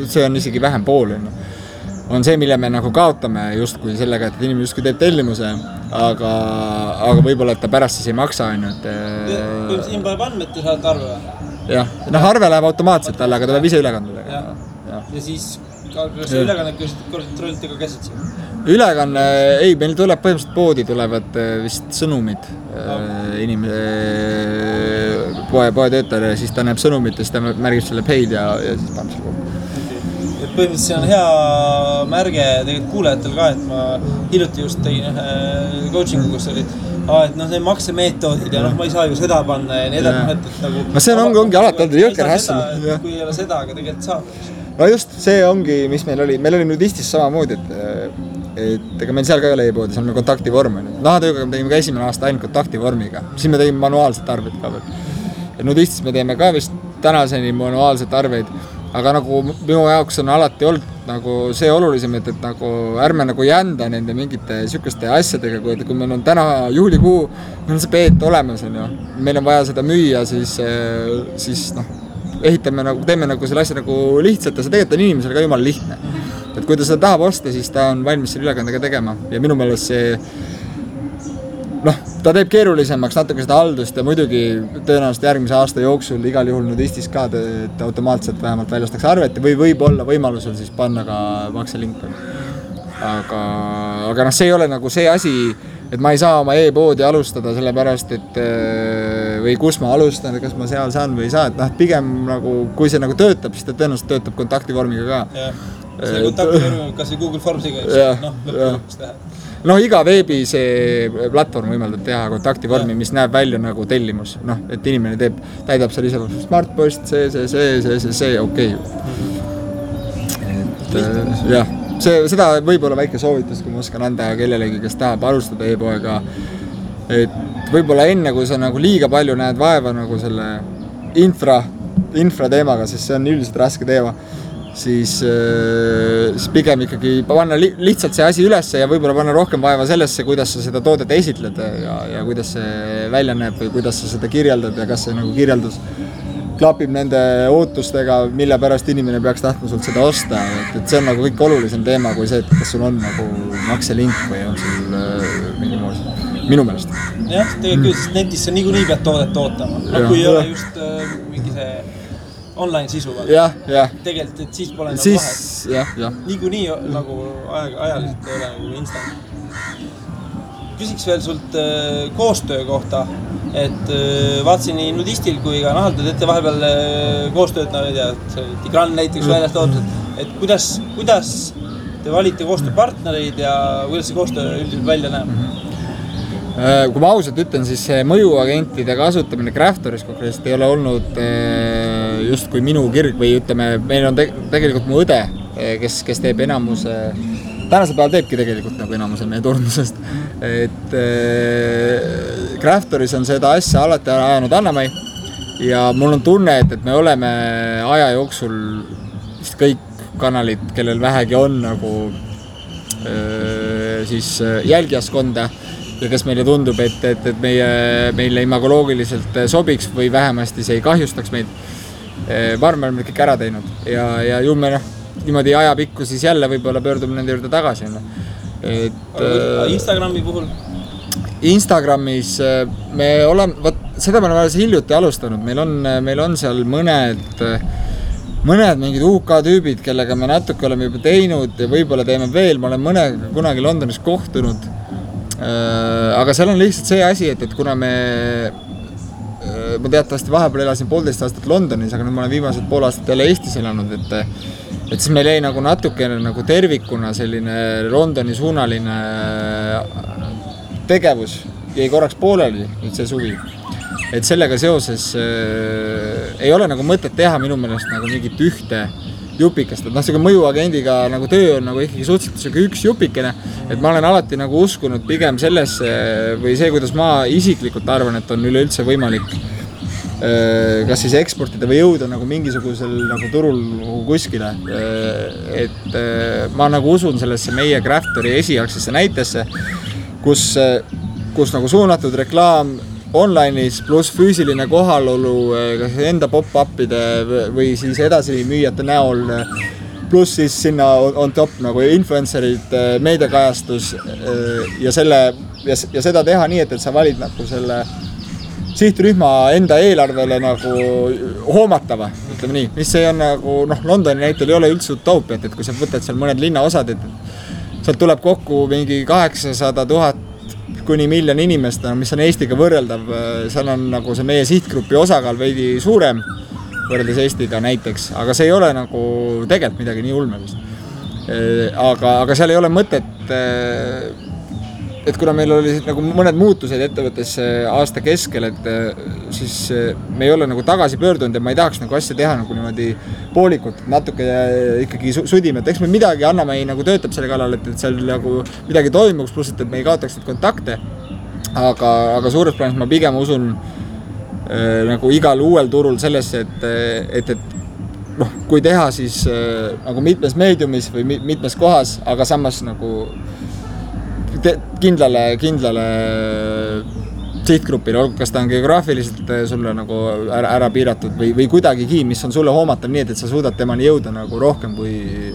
see on isegi vähem pool on see, mille me nagu kaotame justkui sellega, et inimene justkui teeb tellimuse, aga võib-olla, et ta pärast siis ei maksa. Siin paneb andmed, te saate arve või? Jah, arve läheb automaatselt talle, aga ta peab ise ülekandudega. Ja siis, kas ülekannet kontrollite ka käsitsi? Ülekanne, ei, meil tuleb põhimõtteliselt poodi tulevad vist sõnumid poe töötajale ja siis ta näeb sõnumit ja siis ta märgib selle paid ja siis paneb selle kokku. Põhimõtteliselt see on hea märge tegelikult kuulajatel ka, et ma hiljuti just tegin coachingu, kus oli, et see maksemeetoodid ja ma ei saa ju seda panna ja nii edasi. No see ongi alati olnud jõker hässil. Kui ei ole seda, aga tegelikult saab. No just, see ongi, mis meil oli Nudistis samamoodi, et ega meil seal ka ei ole e-poodi, see on meil kontaktivorm. Nahatööga me tegime ka esimene aasta ainult kontaktivormiga, siis me tegime manuaalset arveid ka veel. Ja Nudistis me teeme ka vist tänaseni manuaalset arveid. Aga nagu minu jaoks on alati olnud nagu see olulisem, et nagu ärme nagu jända nende mingite sükeste asjadega, kui meil on täna juulikuu, meil on see peet olemas, meil on vaja seda müüa, siis ehitame nagu, teeme nagu selle asja nagu lihtsalt ja see tegelikult on inimesele ka jumala lihtne. Et kui ta seda tahab osta, siis ta on valmis selle ülekandega tegema ja minu meelest see ta teeb keerulisemaks natuke seda haldust ja muidugi tõenäoliselt järgmise aasta jooksul igal juhul Nudistis ka, et automaatselt vähemalt väljastaks arvet või võib-olla võimalusel siis panna ka makselink. Aga see ei ole nagu see asi, et ma ei saa oma e-poodi alustada sellepärast, et või kus ma alustan, kas ma seal saan või ei saa, et pigem nagu, kui see nagu töötab, siis ta tõenäoliselt töötab kontaktivormiga ka. See kontaktivormiga, kas või Google Formsiga, lõpuks teha. Iga veebi see platvorm võimaldab teha kontaktivormi, mis näeb välja nagu tellimus. Et inimene täidab seal ise smartpost, see okei. Seda võib-olla väike soovitus, kui ma oskan anda kellelegi, kes tahab alustada e-poega. Et võib-olla enne, kui sa nagu liiga palju näed vaeva nagu selle infra teemaga, sest see on üldiselt raske teema, siis pigem ikkagi panna lihtsalt see asi ülesse ja võib-olla panna rohkem vaeva sellesse, kuidas sa seda toodet esitled ja kuidas see välja näeb või kuidas sa seda kirjeldad ja kas see nagu kirjeldus klapib nende ootustega, mille pärast inimene peaks tahtma sult seda osta, et see on nagu kõik olulisem teema kui see, et kas sul on nagu makselink või on sul mingi muus, minu meelest. Jah, tegelikult sest netis sa niikuinii pead toodet ootama, no kui ei ole just mingi see online sisu. Jah. Tegelikult, et siis pole nagu vahet. Jah. Niikuinii nagu ajaliselt ei ole nagu instant. Küsiks veel sult koostöö kohta, et vaatasin nii Nudistil kui ka Nahal, te teete vahepeal koostööd, no ei tea, Tigran näiteks väljast toodused, et kuidas te valite koostööpartnereid ja kuidas see koostöö üldiselt välja näeb? Kui ma ausalt ütlen, siis mõjuagentide kasutamine Craftoris konkreetselt ei ole olnud just kui minu kirg või ütleme, meil on tegelikult mu õde, kes teeb enamuse tänasel päeval teebki tegelikult nagu enamuse meie turundusest, et Craftoris on seda asja alati ajanud Anna-Mai ja mul on tunne, et me oleme aja jooksul vist kõik kanalid, kellel vähegi on nagu siis jälgijaskonda ja kes meile tundub, et meile imagoloogiliselt sobiks või vähemasti see ei kahjustaks meid. Ma arvan, me oleme kõik ära teinud ja ju me niimoodi ajapikku siis jälle võib-olla pöördume nende juurde tagasi. Instagrami puhul? Instagramis me oleme, seda me oleme alles hiljuti alustanud, meil on seal mõned mingid UK tüübid, kellega me natuke oleme juba teinud ja võib-olla teeme veel, ma olen mõnega kunagi Londonis kohtunud, aga seal on lihtsalt see asi, et kuna ma teatavasti vahepeal elasin 1,5 aastat Londonis, aga nüüd ma olen viimased 5 aastat jälle Eestis elanud, et siis meil jäi nagu natukene nagu tervikuna selline Londoni suunaline tegevus jäi korraks pooleli nüüd see suvi. Et sellega seoses ei ole nagu mõtet teha minu meelest nagu mingit ühte jupikest, et see mõjuagendiga nagu töö on nagu ikkagi suhteliselt üks jupikene, et ma olen alati nagu uskunud pigem sellesse või see, kuidas ma isiklikult arvan, et on üleüldse võimalik kas siis eksportida või jõuda nagu mingisugusel nagu turul kuskile, et ma nagu usun sellesse meie Craftori esialgsesse näitesse, kus nagu suunatud reklaam online'is pluss füüsiline kohalolu kas enda pop-upide või siis edasi müüjate näol pluss siis sinna on top nagu influencerid, meediakajastus ja seda teha nii, et sa valid nagu selle sihtrühma enda eelarvele nagu hoomatava, ütleme nii, mis see on nagu, Londoni näitel ei ole üldse utoopiat, et kui sa võtad seal mõned linnaosad, et sealt tuleb kokku mingi 800 000 kuni 1 miljon inimest, mis on Eestiga võrreldav, seal on nagu see meie sihtgrupi osakaal veidi suurem võrreldes Eestiga näiteks, aga see ei ole nagu tegelikult midagi nii ulmelist. Aga seal ei ole mõtet, et kuna meil oli nagu mõned muutused ettevõttes aasta keskel, et siis me ei ole nagu tagasi pöördunud ja ma ei tahaks nagu asja teha nagu niimoodi poolikult, natuke ikkagi sudime, et eks me midagi Anna-Mai nagu töötab selle kallal, et seal nagu midagi toimuks, pluss et me ei kaotaks neid kontakte, aga suures plaanis ma pigem usun nagu igal uuel turul sellesse, et kui teha siis nagu mitmes meediumis või mitmes kohas, aga samas nagu kindlale sihtgrupile, kas ta on geograafiliselt sulle nagu ära piiratud või kuidagigi, mis on sulle hoomatav nii, et sa suudad temani jõuda nagu rohkem kui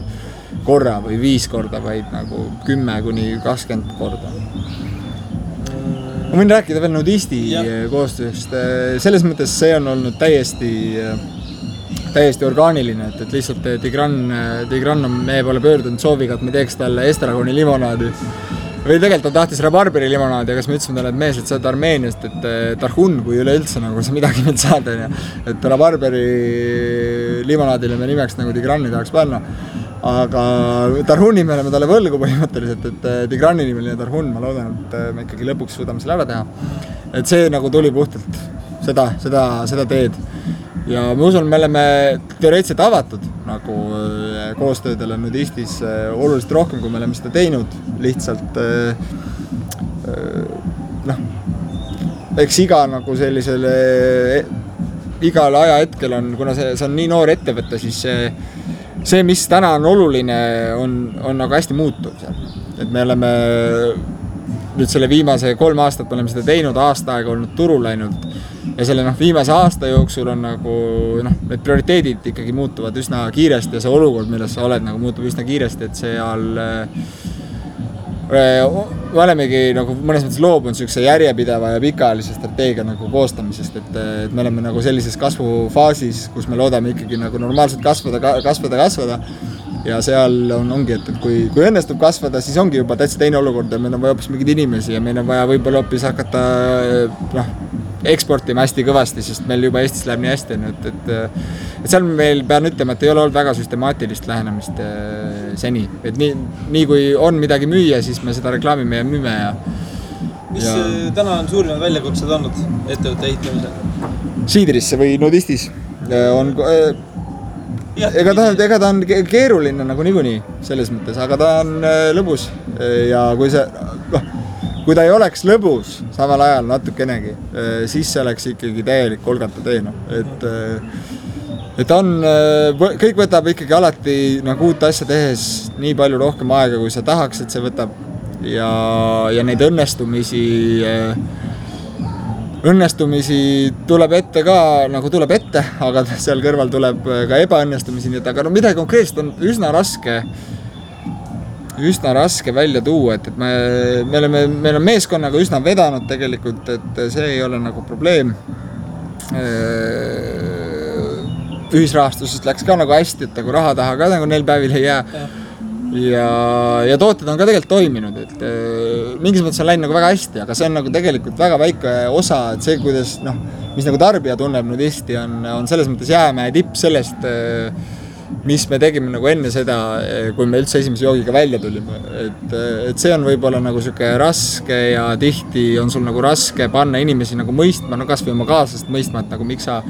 korra või 5 korda, vaid nagu 10 kuni 20 korda. Ma võin rääkida veel Nudisti koostööst. Selles mõttes see on olnud täiesti orgaaniline, et lihtsalt Tigran on meie poole pöördunud sooviga, et me teeks talle estragoni limonaadi. Või tegelikult ta tahtis rabarberi limonaadi, aga siis me ütlesime talle, et mees, et sa oled Armeeniast, et Tarhun, kui üleüldse nagu sa midagi meilt saad, et rabarberi limonaadile me nimeks nagu Tigrani tahaks panna. Aga Tarhuni me oleme talle võlgu põhimõtteliselt, et Tigrani nimeline Tarhun, ma loodan, et me ikkagi lõpuks suudame selle ära teha. Et see nagu tuli puhtalt seda teed. Ja ma usun, me oleme teoreetiliselt avatud nagu koostöödele Nudistis oluliselt rohkem, kui me oleme seda teinud. Lihtsalt eks iga nagu sellisele igal ajahetkel on, kuna see on nii noor ettevõte, siis see, mis täna on oluline, on nagu hästi muutuv seal. Et me oleme nüüd selle viimase 3 aastat me oleme seda teinud, aasta aega olnud turul läinud ja selle viimase aasta jooksul on nagu need prioriteedid ikkagi muutuvad üsna kiiresti ja see olukord, milles sa oled, nagu muutub üsna kiiresti, et seal me olemegi nagu mõnes mõttes loobunud sellise järjepideva ja pikaajalise strateegia nagu koostamisest, et me oleme nagu sellises kasvufaasis, kus me loodame ikkagi nagu normaalselt kasvada ja seal ongi, et kui õnnestub kasvada, siis ongi juba täitsa teine olukord ja meil on vaja hoopis mingeid inimesi ja meil on vaja võib-olla hoopis hakata eksportima hästi kõvasti, sest meil juba Eestis läheb nii hästi, et seal meil pean ütlema, et ei ole olnud väga süstemaatilist lähenemist seni, et nii kui on midagi müüa, siis me seda reklaamime ja müüme Mis täna on suurimad väljakutsed olnud ettevõtte ehitamisel? Siidrisse või Nudistis on ega ta on keeruline nagu niikuinii selles mõttes, aga ta on lõbus ja kui ta ei oleks lõbus samal ajal natukenegi, siis see oleks ikkagi täielik kolgata tee, et kõik võtab ikkagi alati nagu uut asja tehes nii palju rohkem aega, kui sa tahaks, et see võtab ja neid õnnestumisi tuleb ette ka, nagu tuleb ette, aga seal kõrval tuleb ka ebaõnnestumisi, nii et aga midagi konkreetselt on üsna raske välja tuua, et meil on meeskonnaga üsna vedanud tegelikult, et see ei ole nagu probleem. Ühisrahastusest läks ka nagu hästi, et nagu raha taha ka nagu neil päevil ei jää. Ja tooted on ka tegelikult toiminud, et mingis mõttes on läinud nagu väga hästi, aga see on nagu tegelikult väga väike osa, et see, kuidas, mis nagu tarbija tunneb Nudisti, on selles mõttes jäämäe tipp sellest, mis me tegime nagu enne seda, kui me üldse esimese joogiga välja tulime. Et see on võib-olla nagu siuke raske ja tihti on sul nagu raske panna inimesi nagu mõistma, kas või oma kaaslast mõistma, et nagu miks sa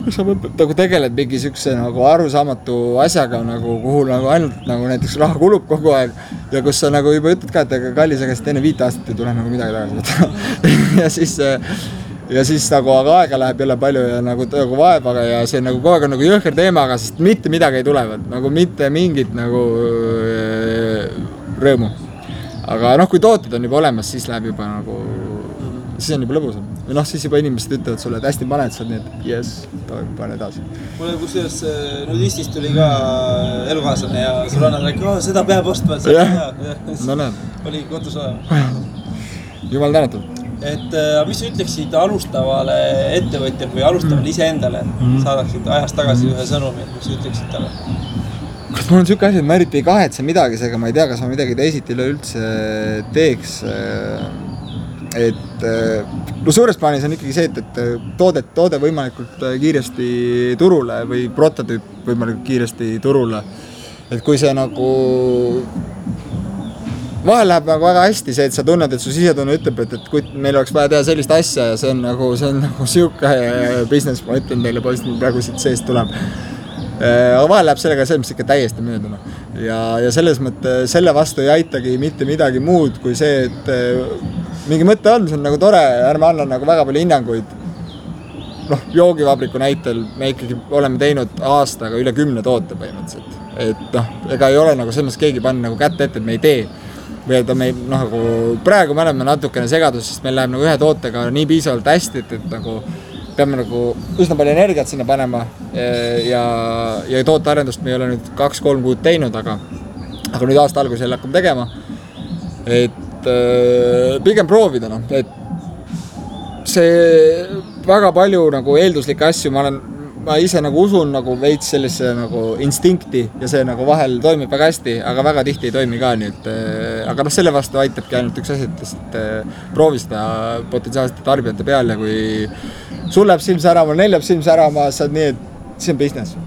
nagu tegeled mingi siukse nagu arusaamatu asjaga, nagu, kuhu nagu ainult nagu näiteks raha kulub kogu aeg ja kus sa nagu juba ütled ka, et kallis, aga enne 5 aastat ei tule nagu midagi tagasi ja siis nagu aga aega läheb jälle palju ja nagu vaevaga ja see nagu kogu aeg on nagu jõhker teemaga, sest mitte midagi ei tulevad, nagu mitte mingit nagu rõõmu. Aga kui tooted on juba olemas, siis läheb juba nagu, siis on juba lõbusam. Või siis juba inimesed ütlevad sulle, et hästi paned sa, nii et yes, pane edasi. Mulle kusjuures Nudistist tuli ka elukaaslane ja sõbrannad rääkida, seda peab ostma, et no näed. Oli kodus olema. Jumal tänatud. Et mis sa ütleksid alustavale ettevõtjale või alustavale iseendale, saadaksid ajast tagasi ühe sõnumi, mis sa ütleksid talle? Kas mul on siuke asi, et ma eriti ei kahetse midagi, seega ma ei tea, kas ma midagi teisiti üleüldse teeks. Et suures plaanis on ikkagi see, et toode võimalikult kiiresti turule või prototüüp võimalikult kiiresti turule. Et kui see nagu vahel läheb nagu väga hästi see, et sa tunned, et su sisetunne ütleb, et kui meil oleks vaja teha sellist asja ja see on nagu siuke business, ma ütlen teile poiss, praegu siit seest tuleb. Aga vahel läheb sellega see, mis ikka täiesti mööduna. Ja selles mõtte selle vastu ei aitagi mitte midagi muud kui see, et mingi mõte on, see on nagu tore, ärme anna nagu väga palju hinnanguid. Joogivabriku näitel me ikkagi oleme teinud aastaga üle 10 toote põhimõtteliselt. Et ega ei ole nagu selles keegi pannud nagu kätte ette, et me ei tee. Või et me nagu praegu me oleme natukene segadus, sest meil läheb nagu ühe tootega nii piisavalt hästi, et nagu peame nagu üsna palju energiat sinna panema ja tootearendust me ei ole nüüd 2-3 kuud teinud, aga nüüd aasta alguses jälle hakkame tegema. Et pigem proovida, et see väga palju nagu eelduslikke asju, ma ise nagu usun nagu veits sellise nagu instinkti ja see nagu vahel toimib väga hästi, aga väga tihti ei toimi ka, nii et aga selle vastu aitabki ainult üks asi, et lihtsalt proovi seda potentsiaalsete tarbijate peal ja kui sul läheb silm särama, neil läheb silm särama, saad nii, et see on business.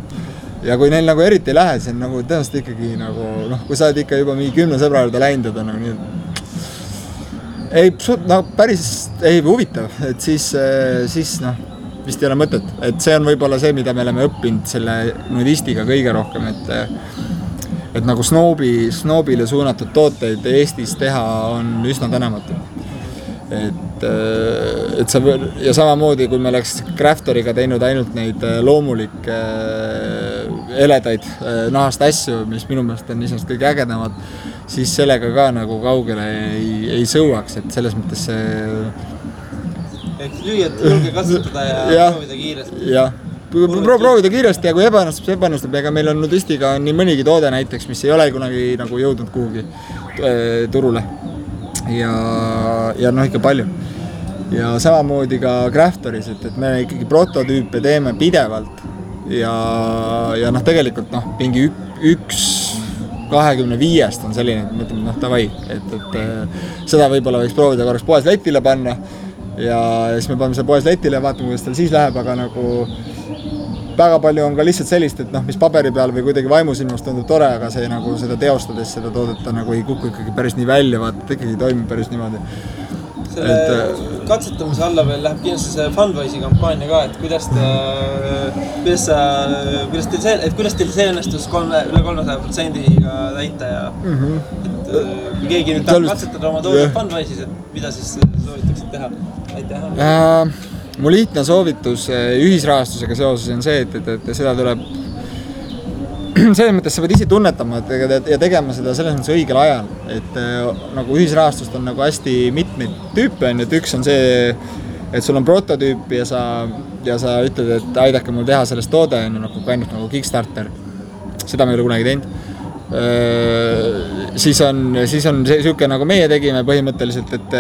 Ja kui neil nagu eriti ei lähe, see on nagu tõenäoliselt ikkagi nagu, kui sa oled ikka juba mingi 10 sõbra juurde läinud, et on nagu nii, päris ei huvitav, et siis vist ei ole mõtet, et see on võib-olla see, mida me oleme õppinud selle Nudistiga kõige rohkem, et nagu snoobile suunatud tooteid Eestis teha on üsna tänamatu. Et sa, ja samamoodi, kui me oleks Crafteriga teinud ainult neid loomulikke eledaid nahast asju, mis minu meelest on iseenesest kõige ägedamad, siis sellega ka nagu kaugele ei sõuaks, et selles mõttes see Ehk lüüad julge katsutada ja proovida kiiresti. Jah, proovida kiiresti ja kui ebanustub, ega meil on nudistiga nii mõnigi toode näiteks, mis ei ole kunagi nagu jõudnud kuhugi turule. Ja noh, ikka palju. Ja samamoodi ka Craftoris, et me ikkagi prototüüpe teeme pidevalt ja noh, tegelikult noh, mingi 1/25 on selline, et mõtleme, noh, davai, et seda võib-olla võiks proovida korraks poes letile panna ja siis me paneme seda poes letile ja vaatame, kuidas tal siis läheb, aga nagu väga palju on ka lihtsalt sellist, et noh, mis paberi peal või kuidagi vaimusilmast tundub tore, aga see nagu seda teostades seda toodeta nagu ei kuku ikkagi päris nii välja, vaata, et ikkagi toimib päris niimoodi. Selle katsetamise alla veel läheb kindlasti see Fundwise'i kampaania ka, et kuidas teil see õnnestus üle 300%-ga täita ja et kui keegi nüüd tahab katsetada oma toodet Fundwise'is, et mida siis soovitaksid teha? Aitäh! Mu lihtne soovitus ühisrahastusega seoses on see, et seda tuleb selles mõttes sa pead ise tunnetama ja tegema seda selles mõttes õigel ajal, et nagu ühisrahastust on nagu hästi mitmeid tüüpe, et üks on see, et sul on prototüüp ja sa ütled, et aidake mul teha sellest toode, nagu ainult nagu Kickstarter, seda me ei ole kunagi teinud. Siis on see siuke nagu meie tegime põhimõtteliselt, et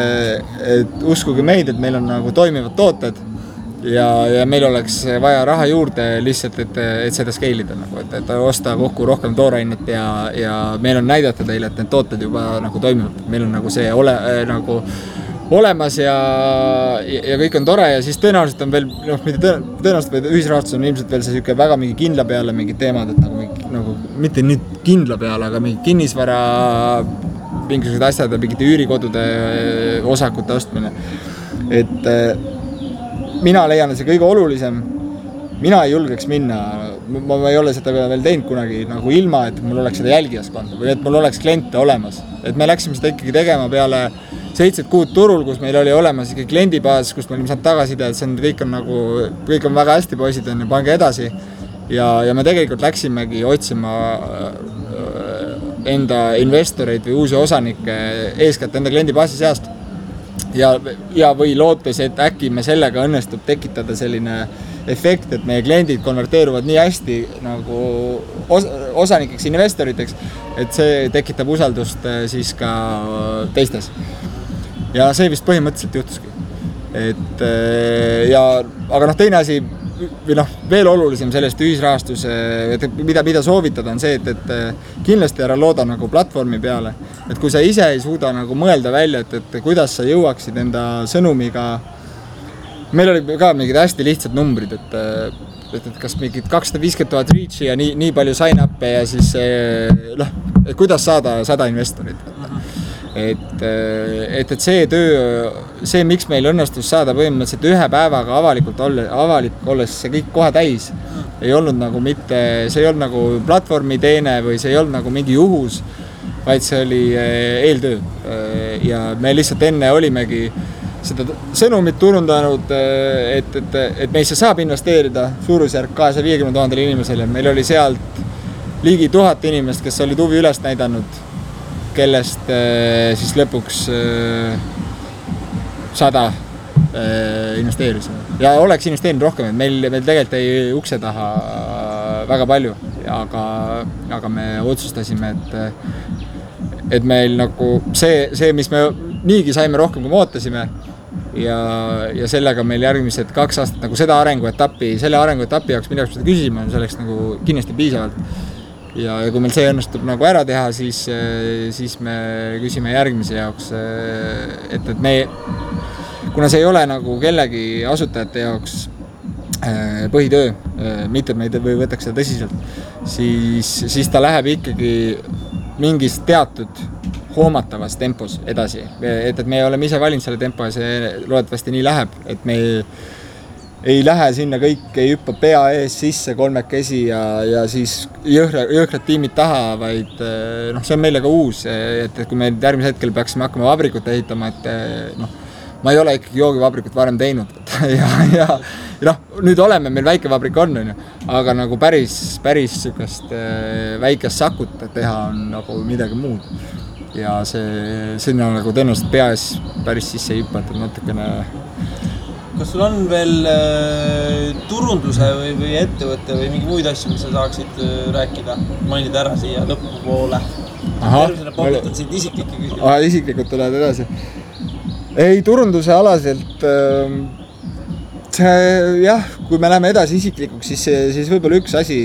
uskuge meid, et meil on nagu toimivad tooted ja meil oleks vaja raha juurde lihtsalt, et seda scale'ida nagu, et osta kokku rohkem toorainet ja meil on näidata teile, et need tooted juba nagu toimivad. Meil on nagu see nagu olemas ja kõik on tore ja siis tõenäoliselt on veel, noh, tõenäoliselt või ühisrahastus on ilmselt veel see siuke väga mingi kindla peale mingid teemad, et nagu mitte nüüd kindla peale, aga mingi kinnisvara, mingisugused asjad ja mingite üürikodude osakute ostmine. Et mina leian, et see kõige olulisem, mina ei julgeks minna, ma ei ole seda veel teinud kunagi nagu ilma, et mul oleks seda jälgijaskonda või et mul oleks kliente olemas. Et me läksime seda ikkagi tegema peale 7 kuud turul, kus meil oli olemas ikkagi kliendibaas, kus me olime saanud tagasiside, et see kõik on väga hästi poisid, pange edasi. Ja me tegelikult läksimegi otsima enda investoreid või uusi osanikke eeskätt enda kliendibaasi seast. Ja või lootes, et äkki me sellega õnnestub tekitada selline efekt, et meie kliendid konverteeruvad nii hästi nagu osanikeks, investoriteks, et see tekitab usaldust siis ka teistes. Ja see vist põhimõtteliselt juhtuski. Aga noh, teine asi, või noh, veel olulisem sellest ühisrahastuse, mida soovitada on see, et kindlasti ära looda nagu platvormi peale. Et kui sa ise ei suuda nagu mõelda välja, et kuidas sa jõuaksid enda sõnumiga, meil oli ka mingid hästi lihtsad numbrid, et kas mingid 250,000 reach'i ja nii palju sign-up'e ja siis et kuidas saada 100 investorit. Et see töö, see miks meil õnnestus saada põhimõtteliselt ühe päevaga avalik olles see kõik kohe täis, ei olnud nagu mitte, see ei olnud nagu platvormi teene või see ei olnud nagu mingi juhus, vaid see oli eeltöö. Ja me lihtsalt enne olimegi seda sõnumit turundanud, et meisse saab investeerida suurusjärk 250,000 inimesele. Meil oli sealt ligi 1000 inimest, kes olid huvi üles näidanud, kellest siis lõpuks 100 investeerisime. Ja oleks investeerinud rohkem, et meil tegelikult ei ukse taha väga palju, aga me otsustasime, et meil nagu see, mis me niigi saime rohkem, kui me ootasime ja sellega meil järgmised 2 aastat nagu selle arenguetapi jaoks, mida seda küsime, selleks nagu kindlasti piisavalt. Ja kui meil see õnnestub nagu ära teha, siis me küsime järgmise jaoks, et me, kuna see ei ole nagu kellegi asutajate jaoks põhitöö, mitte et me ei võtaks seda tõsiselt, siis ta läheb ikkagi mingis teatud hoomatavas tempos edasi. Et me oleme ise valinud selle tempo ja see loodetavasti nii läheb, et me ei lähe sinna kõik, ei hüppa pea ees sisse 3 ja siis jõhkrad tiimid taha, vaid see on meile ka uus, et kui me järgmise hetkel peaksime hakkama vabrikut ehitama, et ma ei ole ikkagi joogivabrikut varem teinud ja nüüd oleme, meil väike vabrik on, aga nagu päris sükast väikest sakut teha on nagu midagi muud. Ja sinna nagu tõenäoliselt pea ees päris sisse ei hüpata, natukene kas sul on veel turunduse või ettevõtte või mingi muid asju, mis sa saaksid rääkida, mainida ära siia lõpupoole? Tervisena popitad sind isiklikke küsima. Isiklikult tuled edasi. Ei, turunduse alaselt jah, kui me läheme edasi isiklikuks, siis võib-olla üks asi,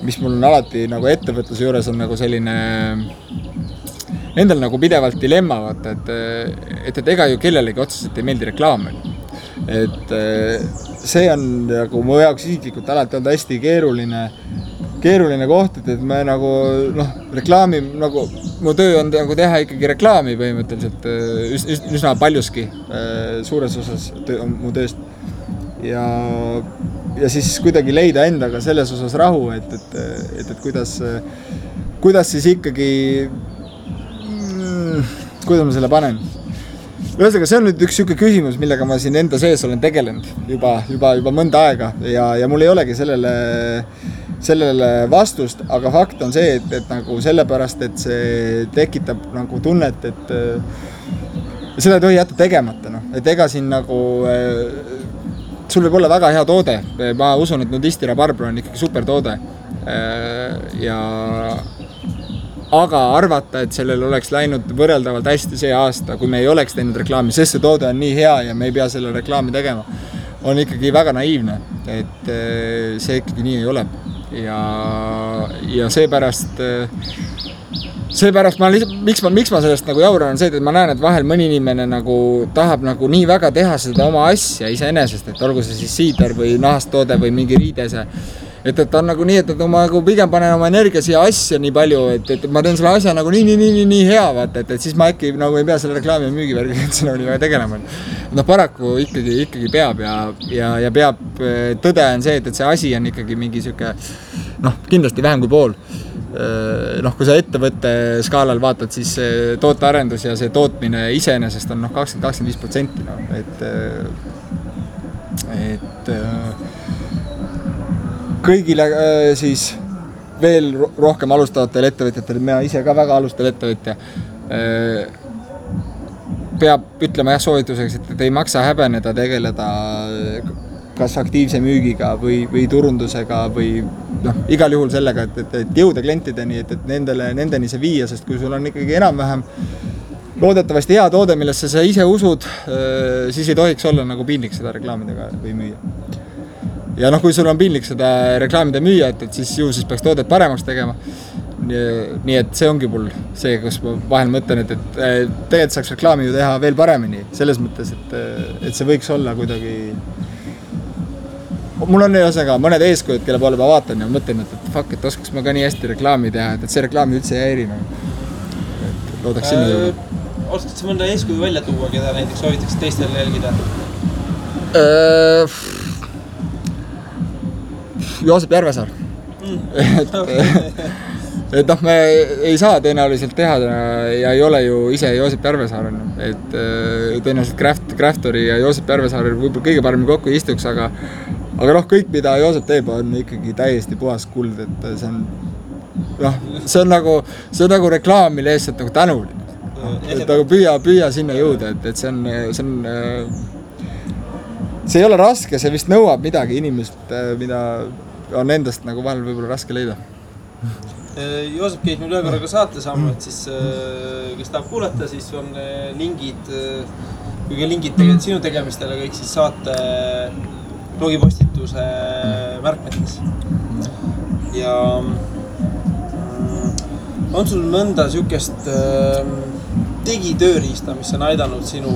mis mul on alati nagu ettevõtluse juures on nagu selline nendel nagu pidevalt dilemma, vaata, et ega ju kellelegi otseselt ei meeldi reklaam. Et see on nagu mu jaoks isiklikult alati olnud hästi keeruline koht, et me nagu reklaami, nagu mu töö on nagu teha ikkagi reklaami põhimõtteliselt üsna paljuski, suures osas mu tööst. Ja siis kuidagi leida endaga selles osas rahu, et kuidas siis ikkagi, kuidas ma selle panen. Ühesõnaga, see on nüüd üks siuke küsimus, millega ma siin enda sees olen tegelenud juba mõnda aega ja mul ei olegi sellele vastust, aga fakt on see, et nagu sellepärast, et see tekitab nagu tunnet, et seda ei tohi jätta tegemata, et ega siin nagu sul võib olla väga hea toode, ma usun, et Nudisti Rabarbro on ikkagi super toode aga arvata, et sellel oleks läinud võrreldavalt hästi see aasta, kui me ei oleks teinud reklaami, sest see toode on nii hea ja me ei pea selle reklaami tegema, on ikkagi väga naiivne, et see ikkagi nii ei ole. Ja seepärast miks ma sellest nagu jauran on see, et ma näen, et vahel mõni inimene nagu tahab nagu nii väga teha seda oma asja iseenesest, et olgu see siis siider või nahasttoode või mingi riidese. Et ta on nagu nii, et ma nagu pigem panen oma energia siia asja nii palju, et ma teen selle asja nagu nii hea, vaata, et siis ma äkki nagu ei pea selle reklaami ja müügivärgiga üldse nagu nii väga tegelema. Paraku ikkagi peab ja peab, tõde on see, et see asi on ikkagi mingi siuke, kindlasti vähem kui pool. Kui sa ettevõtte skaalal vaatad, siis tootearendus ja see tootmine iseenesest on 20-25%. Et kõigile siis veel rohkem alustavatel ettevõtjatel, mina ise ka väga alustav ettevõtja, peab ütlema soovituseks, et ei maksa häbeneda tegeleda kas aktiivse müügiga või turundusega või igal juhul sellega, et jõuda klientideni, et nendeni see viia, sest kui sul on ikkagi enam-vähem loodetavasti hea toode, millesse sa ise usud, siis ei tohiks olla nagu piinlik seda reklaamidega või müüa. Ja kui sul on piinlik seda reklaamida müüa, et siis peaks toodet paremaks tegema. Nii et see ongi mul see, kus ma vahel mõtlen, et tegelikult saaks reklaami ju teha veel paremini. Selles mõttes, et see võiks olla kuidagi... Mul on mõned eeskujud, kelle poole ma vaatan ja mõtlen, et fuck, et oskaks ma ka nii hästi reklaami teha, et see reklaami üldse ei häiri. Loodaks sinna jõuda. Oskad sa mõnda eeskuju välja tuua, keda näiteks soovitaks teistel jälgida? Joosep Järvesaar. Et me ei saa tõenäoliselt teha ja ei ole ju ise Joosep Järvesaar. Et tõenäoliselt Craftori ja Joosep Järvesaar võib-olla kõige paremini kokku istuks, aga kõik, mida Joosep teeb, on ikkagi täiesti puhas kuld, et see on nagu reklaam, mille eest nagu tänuline. Et nagu püüa sinna jõuda, et see on see ei ole raske, see vist nõuab midagi inimest, mida on endast nagu vahel võib-olla raske leida. Joosep käis meil ühe korraga saate saama, et siis kes tahab kuulata, siis on lingid, kuigi lingid tegelikult sinu tegemistele kõik siis saate blogipostituse märkmetes. Ja on sul mõnda siukest digitööriista, mis on aidanud sinu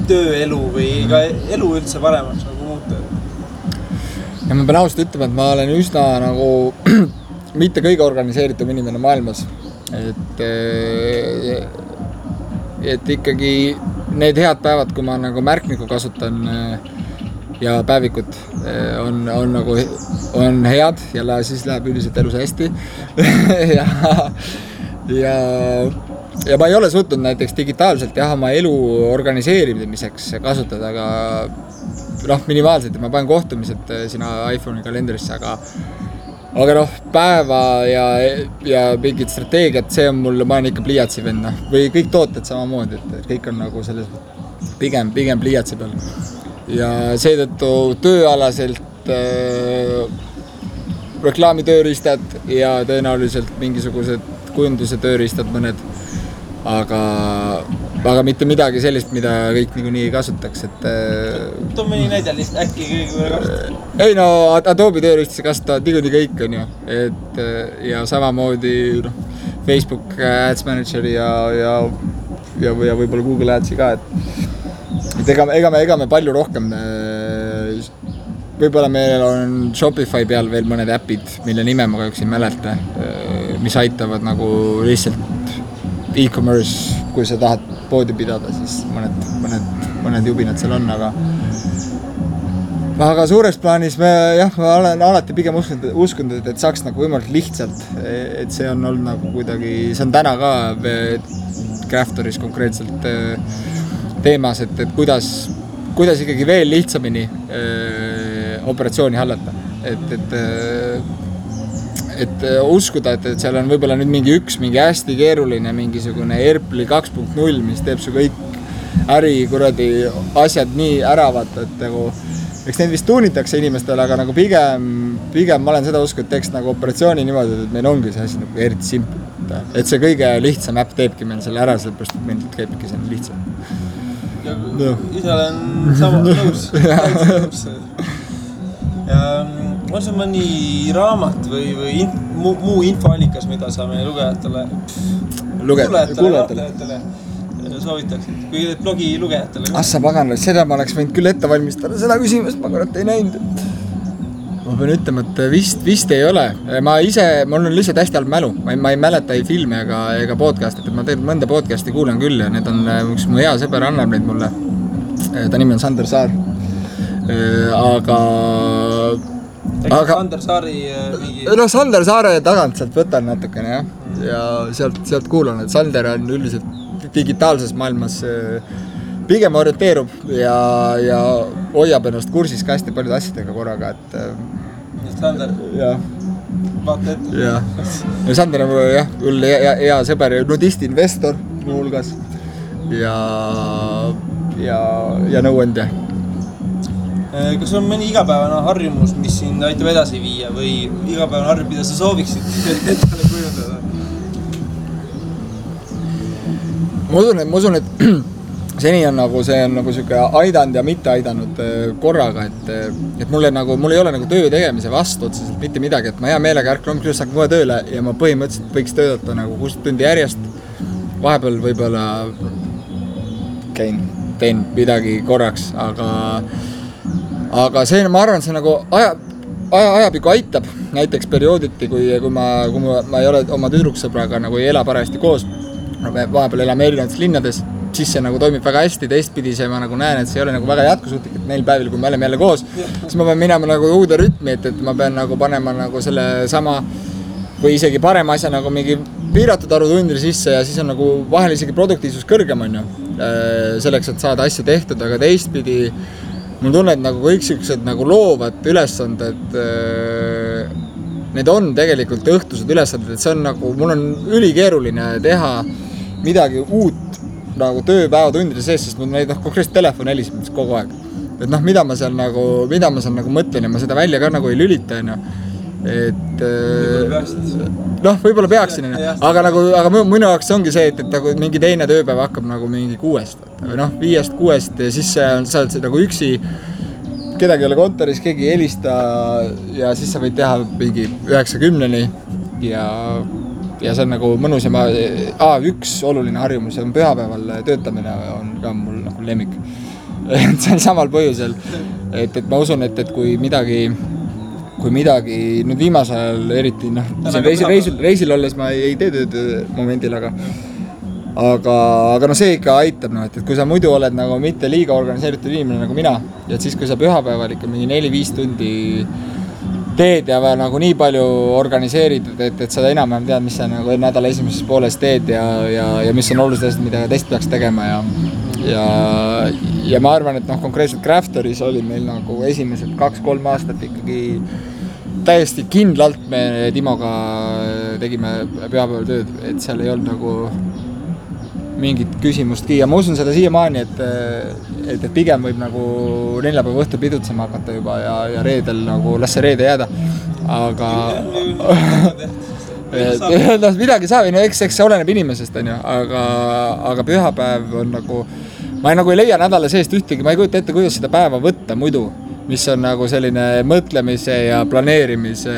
tööelu või ka elu üldse paremaks nagu muuta? Ja ma pean ausalt ütlema, et ma olen üsna nagu mitte kõige organiseeritum inimene maailmas. Et ikkagi need head päevad, kui ma nagu märkniku kasutan ja päevikut on head ja siis läheb üldiselt elus hästi. Ja ma ei ole suutnud näiteks digitaalselt oma elu organiseerimiseks kasutada, aga minimaalselt, et ma panen kohtumised sina iPhone'i kalendrisse, aga noh, päeva ja mingid strateegiad, see on mul, ma olen ikka pliiatsi vend, või kõik tooted samamoodi, et kõik on nagu selles pigem pliiatsi peal. Ja seetõttu tööalaselt reklaamitööriistad ja tõenäoliselt mingisugused kujunduse tööriistad mõned, aga mitte midagi sellist, mida kõik niikuinii ei kasutaks, et too mõni näide lihtsalt äkki kõige kasutavad. Ei no, Adobe tööriistasi kasutavad niikuinii kõik on ju, et ja samamoodi noh, Facebook Ads Manager ja võib-olla Google Adsi ka, et ega me palju rohkem, võib-olla meil on Shopify peal veel mõned äpid, mille nime ma kahjuks ei mäleta, mis aitavad nagu lihtsalt e-commerce, kui sa tahad poodi pidada, siis mõned jubinad seal on, aga suures plaanis ma olen alati pigem uskunud, et saaks nagu võimalikult lihtsalt, et see on olnud nagu kuidagi, see on täna ka Craftoris konkreetselt teemas, et kuidas ikkagi veel lihtsamini operatsiooni hallata, et uskuda, et seal on võib-olla nüüd mingi hästi keeruline mingisugune Erpli 2.0, mis teeb su kõik kuradi asjad nii ära vaata, et nagu eks neid vist tuunitakse inimestele, aga nagu pigem ma olen seda usku, et teeks nagu operatsiooni niimoodi, et meil ongi see asi nagu eriti simple, et see kõige lihtsam äpp teebki meil selle ära, sellepärast, et meil käibki see lihtsam. Ja ise olen sama nõus. Ja on see mõni raamat või muu infoallikas, mida sa meie lugejatele soovitaksid, kui blogi lugejatele. Assa paganal, seda ma oleks võinud küll ette valmistada, seda küsimust ma kurat ei näinud. Ma pean ütlema, et vist ei ole. Mul on lihtsalt hästi halb mälu. Ma ei mäleta ei filme ega podcastit, et ma mõnda podcasti kuulan küll ja need on üks mu hea sõber annab neid mulle. Ta nimi on Sander Saar. Aga Sander Saari mingi... No Sander Saare tagant sealt võtan natukene ja sealt kuulan, et Sander on üldiselt digitaalses maailmas pigem orienteerub ja hoiab ennast kursis ka hästi paljude asjadega korraga, et Sander, vaata ette. Ja Sander on küll hea sõber ja nudist-investor muu hulgas ja nõuandja. Kas on mõni igapäevane harjumus, mis sind aitab edasi viia või igapäevane harjumus, mida sa sooviksid endale kujundada? Ma usun, et seni on nagu see on nagu siuke aidanud ja mitte aidanud korraga, et mul ei ole nagu töö tegemise vastu otseselt mitte midagi, et ma hea meelega ärkan hommikul saan kohe tööle ja ma põhimõtteliselt võiks töötada nagu 6 tundi järjest. Vahepeal võib-olla teen midagi korraks, aga see, ma arvan, see nagu ajapikku aitab, näiteks periooditi, kui ma ei ole oma tüdruksõbraga nagu ei ela parajasti koos, vahepeal elame erinevates linnades, siis see nagu toimib väga hästi, teistpidi see ma nagu näen, et see ei ole nagu väga jätkusuutlik, et neil päevil, kui me oleme jälle koos, siis ma pean minema nagu uude rütmi, et ma pean nagu panema nagu selle sama või isegi parema asja nagu mingi piiratud arvu tundile sisse ja siis on nagu vahel isegi produktiivsus kõrgem on ju, selleks, et saada asju tehtud, aga teistpidi mul tunned nagu kõik siuksed nagu loovad ülesanded, need on tegelikult õhtused ülesanded, et see on nagu, mul on ülikeeruline teha midagi uut nagu tööpäeva tundide sees, sest mul neid konkreetselt telefon heliseb kogu aeg. Et mida ma seal nagu mõtlen ja ma seda välja ka nagu ei lülita, et võib-olla peaksin, aga minu jaoks ongi see, et nagu mingi teine tööpäev hakkab nagu mingi 6 või 5-6 ja siis sa oled nagu üksi, kedagi ei ole kontoris, keegi ei helista ja siis sa võid teha mingi 9-10-ni ja see on nagu mõnus ja üks oluline harjumus on pühapäeval töötamine on ka mul nagu lemmik. See on samal põhjusel, et ma usun, et kui midagi nüüd viimasel ajal eriti, reisil olles ma ei tee tööd momendil, aga see ikka aitab, et kui sa muidu oled nagu mitte liiga organiseeritud inimene nagu mina, ja siis kui sa pühapäeval ikka mingi 4-5 tundi teed ja nagu nii palju organiseeritud, et sa enam-vähem tead, mis sa nagu nädala esimeses pooles teed ja mis on olulised asjad, mida teist peaks tegema ja ma arvan, et konkreetselt Craftoris oli meil nagu esimesed 2-3 aastat ikkagi täiesti kindlalt me Timoga tegime pühapäeval tööd, et seal ei olnud nagu mingit küsimustki ja ma usun seda siiamaani, et pigem võib nagu neljapäeva õhtul pidutsema hakata juba ja reedel nagu las see reede jääda, aga midagi saab, no eks see oleneb inimesest, on ju, aga pühapäev on nagu, ma nagu ei leia nädala seest ühtegi, ma ei kujuta ette, kuidas seda päeva võtta muidu, mis on nagu selline mõtlemise ja planeerimise,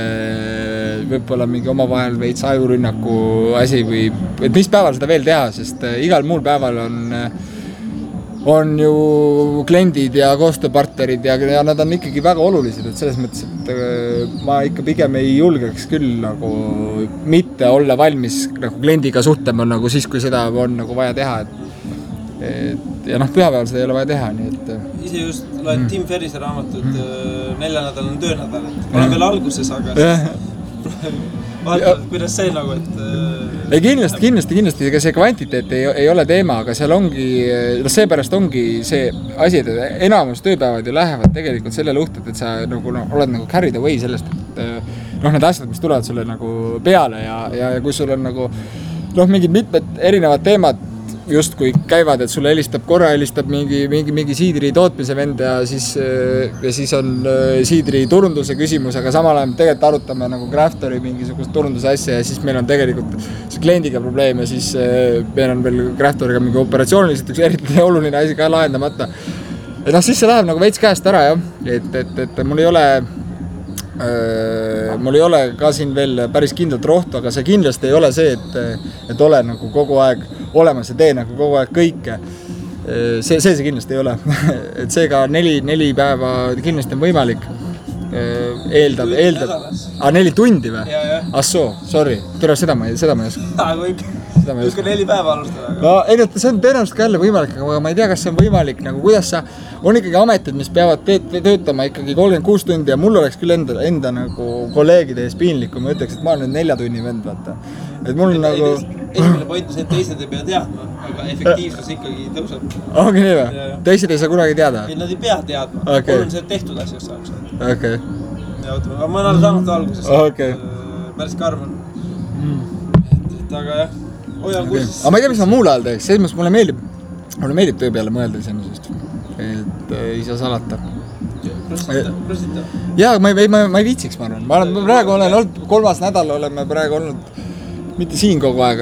võib-olla mingi omavahel veits ajurünnaku asi või et mis päeval seda veel teha, sest igal muul päeval on ju kliendid ja koostööpartnerid ja nad on ikkagi väga olulised, et selles mõttes, et ma ikka pigem ei julgeks küll nagu mitte olla valmis nagu kliendiga suhtlema nagu siis, kui seda on nagu vaja teha, ja pühapäeval seda ei ole vaja teha, nii et ise just loed Tim Ferrise raamatut 4 nädal on töönädal, et olen veel alguses, aga vaatavad, kuidas see nagu, et ei, kindlasti, ega see kvantiteet ei ole teema, aga seal ongi, seepärast ongi see asi, et enamus tööpäevad ju lähevad tegelikult selle luhtud, et sa nagu, oled nagu carried away sellest, et need asjad, mis tulevad sulle nagu peale ja kui sul on nagu mingid mitmed erinevad teemad just kui käivad, et sulle helistab mingi siidri tootmise vend ja siis on siidri turunduse küsimus, aga samal ajal tegelikult arutame nagu Craftori mingisugust turunduse asja ja siis meil on tegelikult see kliendiga probleem ja siis meil on veel Craftoriga mingi operatsiooniliselt üks eriti oluline asi ka lahendamata. Et siis see läheb nagu veits käest ära, jah. Et mul ei ole ka siin veel päris kindlat rohtu, aga see kindlasti ei ole see, et ole nagu kogu aeg olemas ja tee nagu kogu aeg kõike. See kindlasti ei ole. Et seega 4 päeva kindlasti on võimalik. Eeldab. 4 tundi või? Assoo, sorry. Seda ma ei oska. Kui 4 päeva alustada. No, see on tõenäoliselt ka jälle võimalik, aga ma ei tea, kas see on võimalik, nagu kuidas on ikkagi ametid, mis peavad töötama ikkagi 36 tundi ja mul oleks küll enda nagu kolleegide ees piinlik, kui ma ütleks, et ma olen 4 tunni vend, vaata. Et mul on nagu... Esimene point on see, et teised ei pea teadma, aga efektiivsus ikkagi tõuseb. Ongi nii või? Teised ei saa kunagi teada? Ei, nad ei pea teadma. Mul on see tehtud asjast saaks. Okei. Aga ma olen saanud alguses. Päris karm on. Et aga jah, hoian kursis. Aga ma ei tea, mis ma muul ajal teeks. Selles mulle meeldib töö peale mõelda iseenesest. Et ei saa salata. Prostita. Jaa, ma ei viitsiks, ma arvan. Ma praegu olen olnud, 3. nädal oleme praegu olnud mitte siin kogu aeg,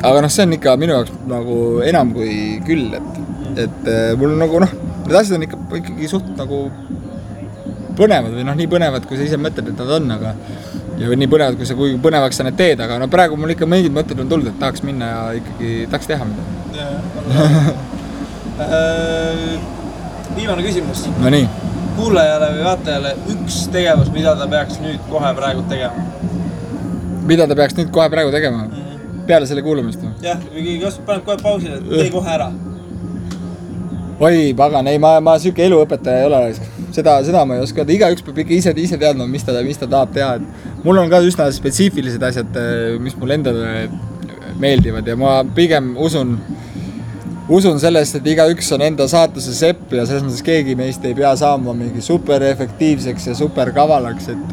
aga see on ikka minu jaoks nagu enam kui küll, et mul nagu need asjad on ikkagi suht nagu põnevad või nii põnevad, kui sa ise mõtled, et nad on, aga ja nii põnevad, kui põnevaks sa need teed, aga praegu mul ikka mingid mõtted on tulnud, et tahaks minna ja ikkagi tahaks teha midagi. Viimane küsimus. No nii. Kuulajale või vaatajale üks tegevus, mida ta peaks nüüd kohe praegu tegema? Mida ta peaks nüüd kohe praegu tegema? Peale selle kuulamist? Jah, kas paned kohe pausile, et tee kohe ära? Oi, pagan, ei, ma süke eluõpetaja ei ole. Seda ma ei oska. Igaüks peab ikka ise teadma, mis ta tahab teha. Mul on ka üsna spetsiifilised asjad, mis mul endale meeldivad ja ma pigem usun sellest, et igaüks on enda saatuse sepp ja selles mõttes keegi meist ei pea saama mingi super efektiivseks ja super kavalaks, et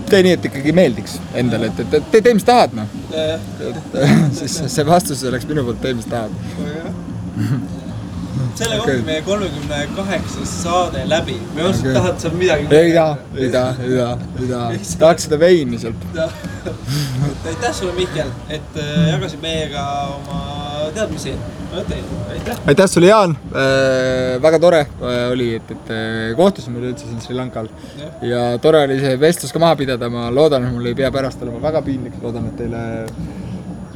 tee nii, et ikkagi meeldiks endale, et tee, mis tahad, siis see vastus oleks minu poolt tee, mis tahad. Selle kohta meie 38 saade läbi. Me osad tahad sa midagi... Ei taha. Tahaks seda veini sealt. Aitäh sulle, Mihkel, et jagasid meiega oma teadmisi. Aitäh sulle, Jaan. Väga tore oli, et kohtusime üldse siin Sri Lankal. Ja tore oli see vestlus ka maha pidada. Ma loodan, et mul ei pea pärast olema väga piinlik. Loodan, et teile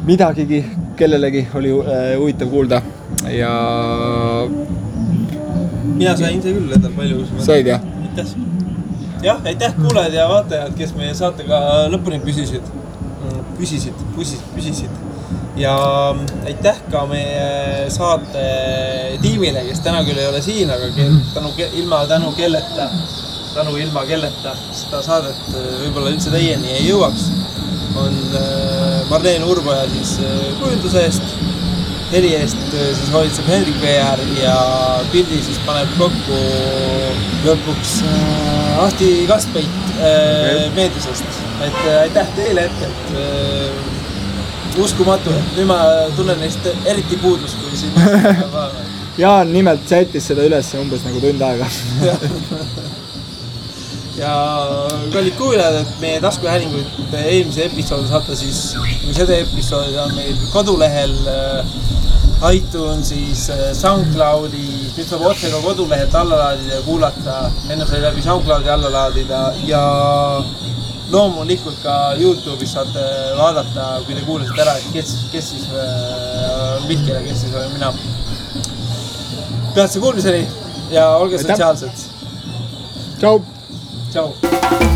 midagigi, kellelegi oli huvitav kuulda. Ja mina sain see küll endal palju. Said, jah? Aitäh. Jah, aitäh kuulajad ja vaatajad, kes meie saatega lõpuni püsisid. Ja aitäh ka meie saate tiimile, kes täna küll ei ole siin, aga ilma kelleta seda saadet võib-olla üldse teieni ei jõuaks. On Marleen Urboja siis kujunduse eest. heli eest siis hoolitseb Hendrik VR ja pildi siis paneb kokku lõpuks Ahti Kaspeit meediusest. Et aitäh teile ette, et uskumatu, et nüüd ma tunnen neist eriti puudust, kui siin Jaan nimelt sättis seda üles umbes nagu tund aega. Ja kallid kuulajad, et meie taskuhäälinguid eelmise episoodi saate siis, seda episoodi on meil kodulehel iTunesis, SoundCloudi, nüüd saab otse ka kodulehelt alla laadida ja kuulata, enne sai läbi SoundCloudi alla laadida ja loomulikult ka YouTube'is saate vaadata, kui te kuulasite ära, et kes siis Mihkel ja kes siis olen mina. Peatse kuulmiseni ja olge sotsiaalsed. Tšau! Tšau!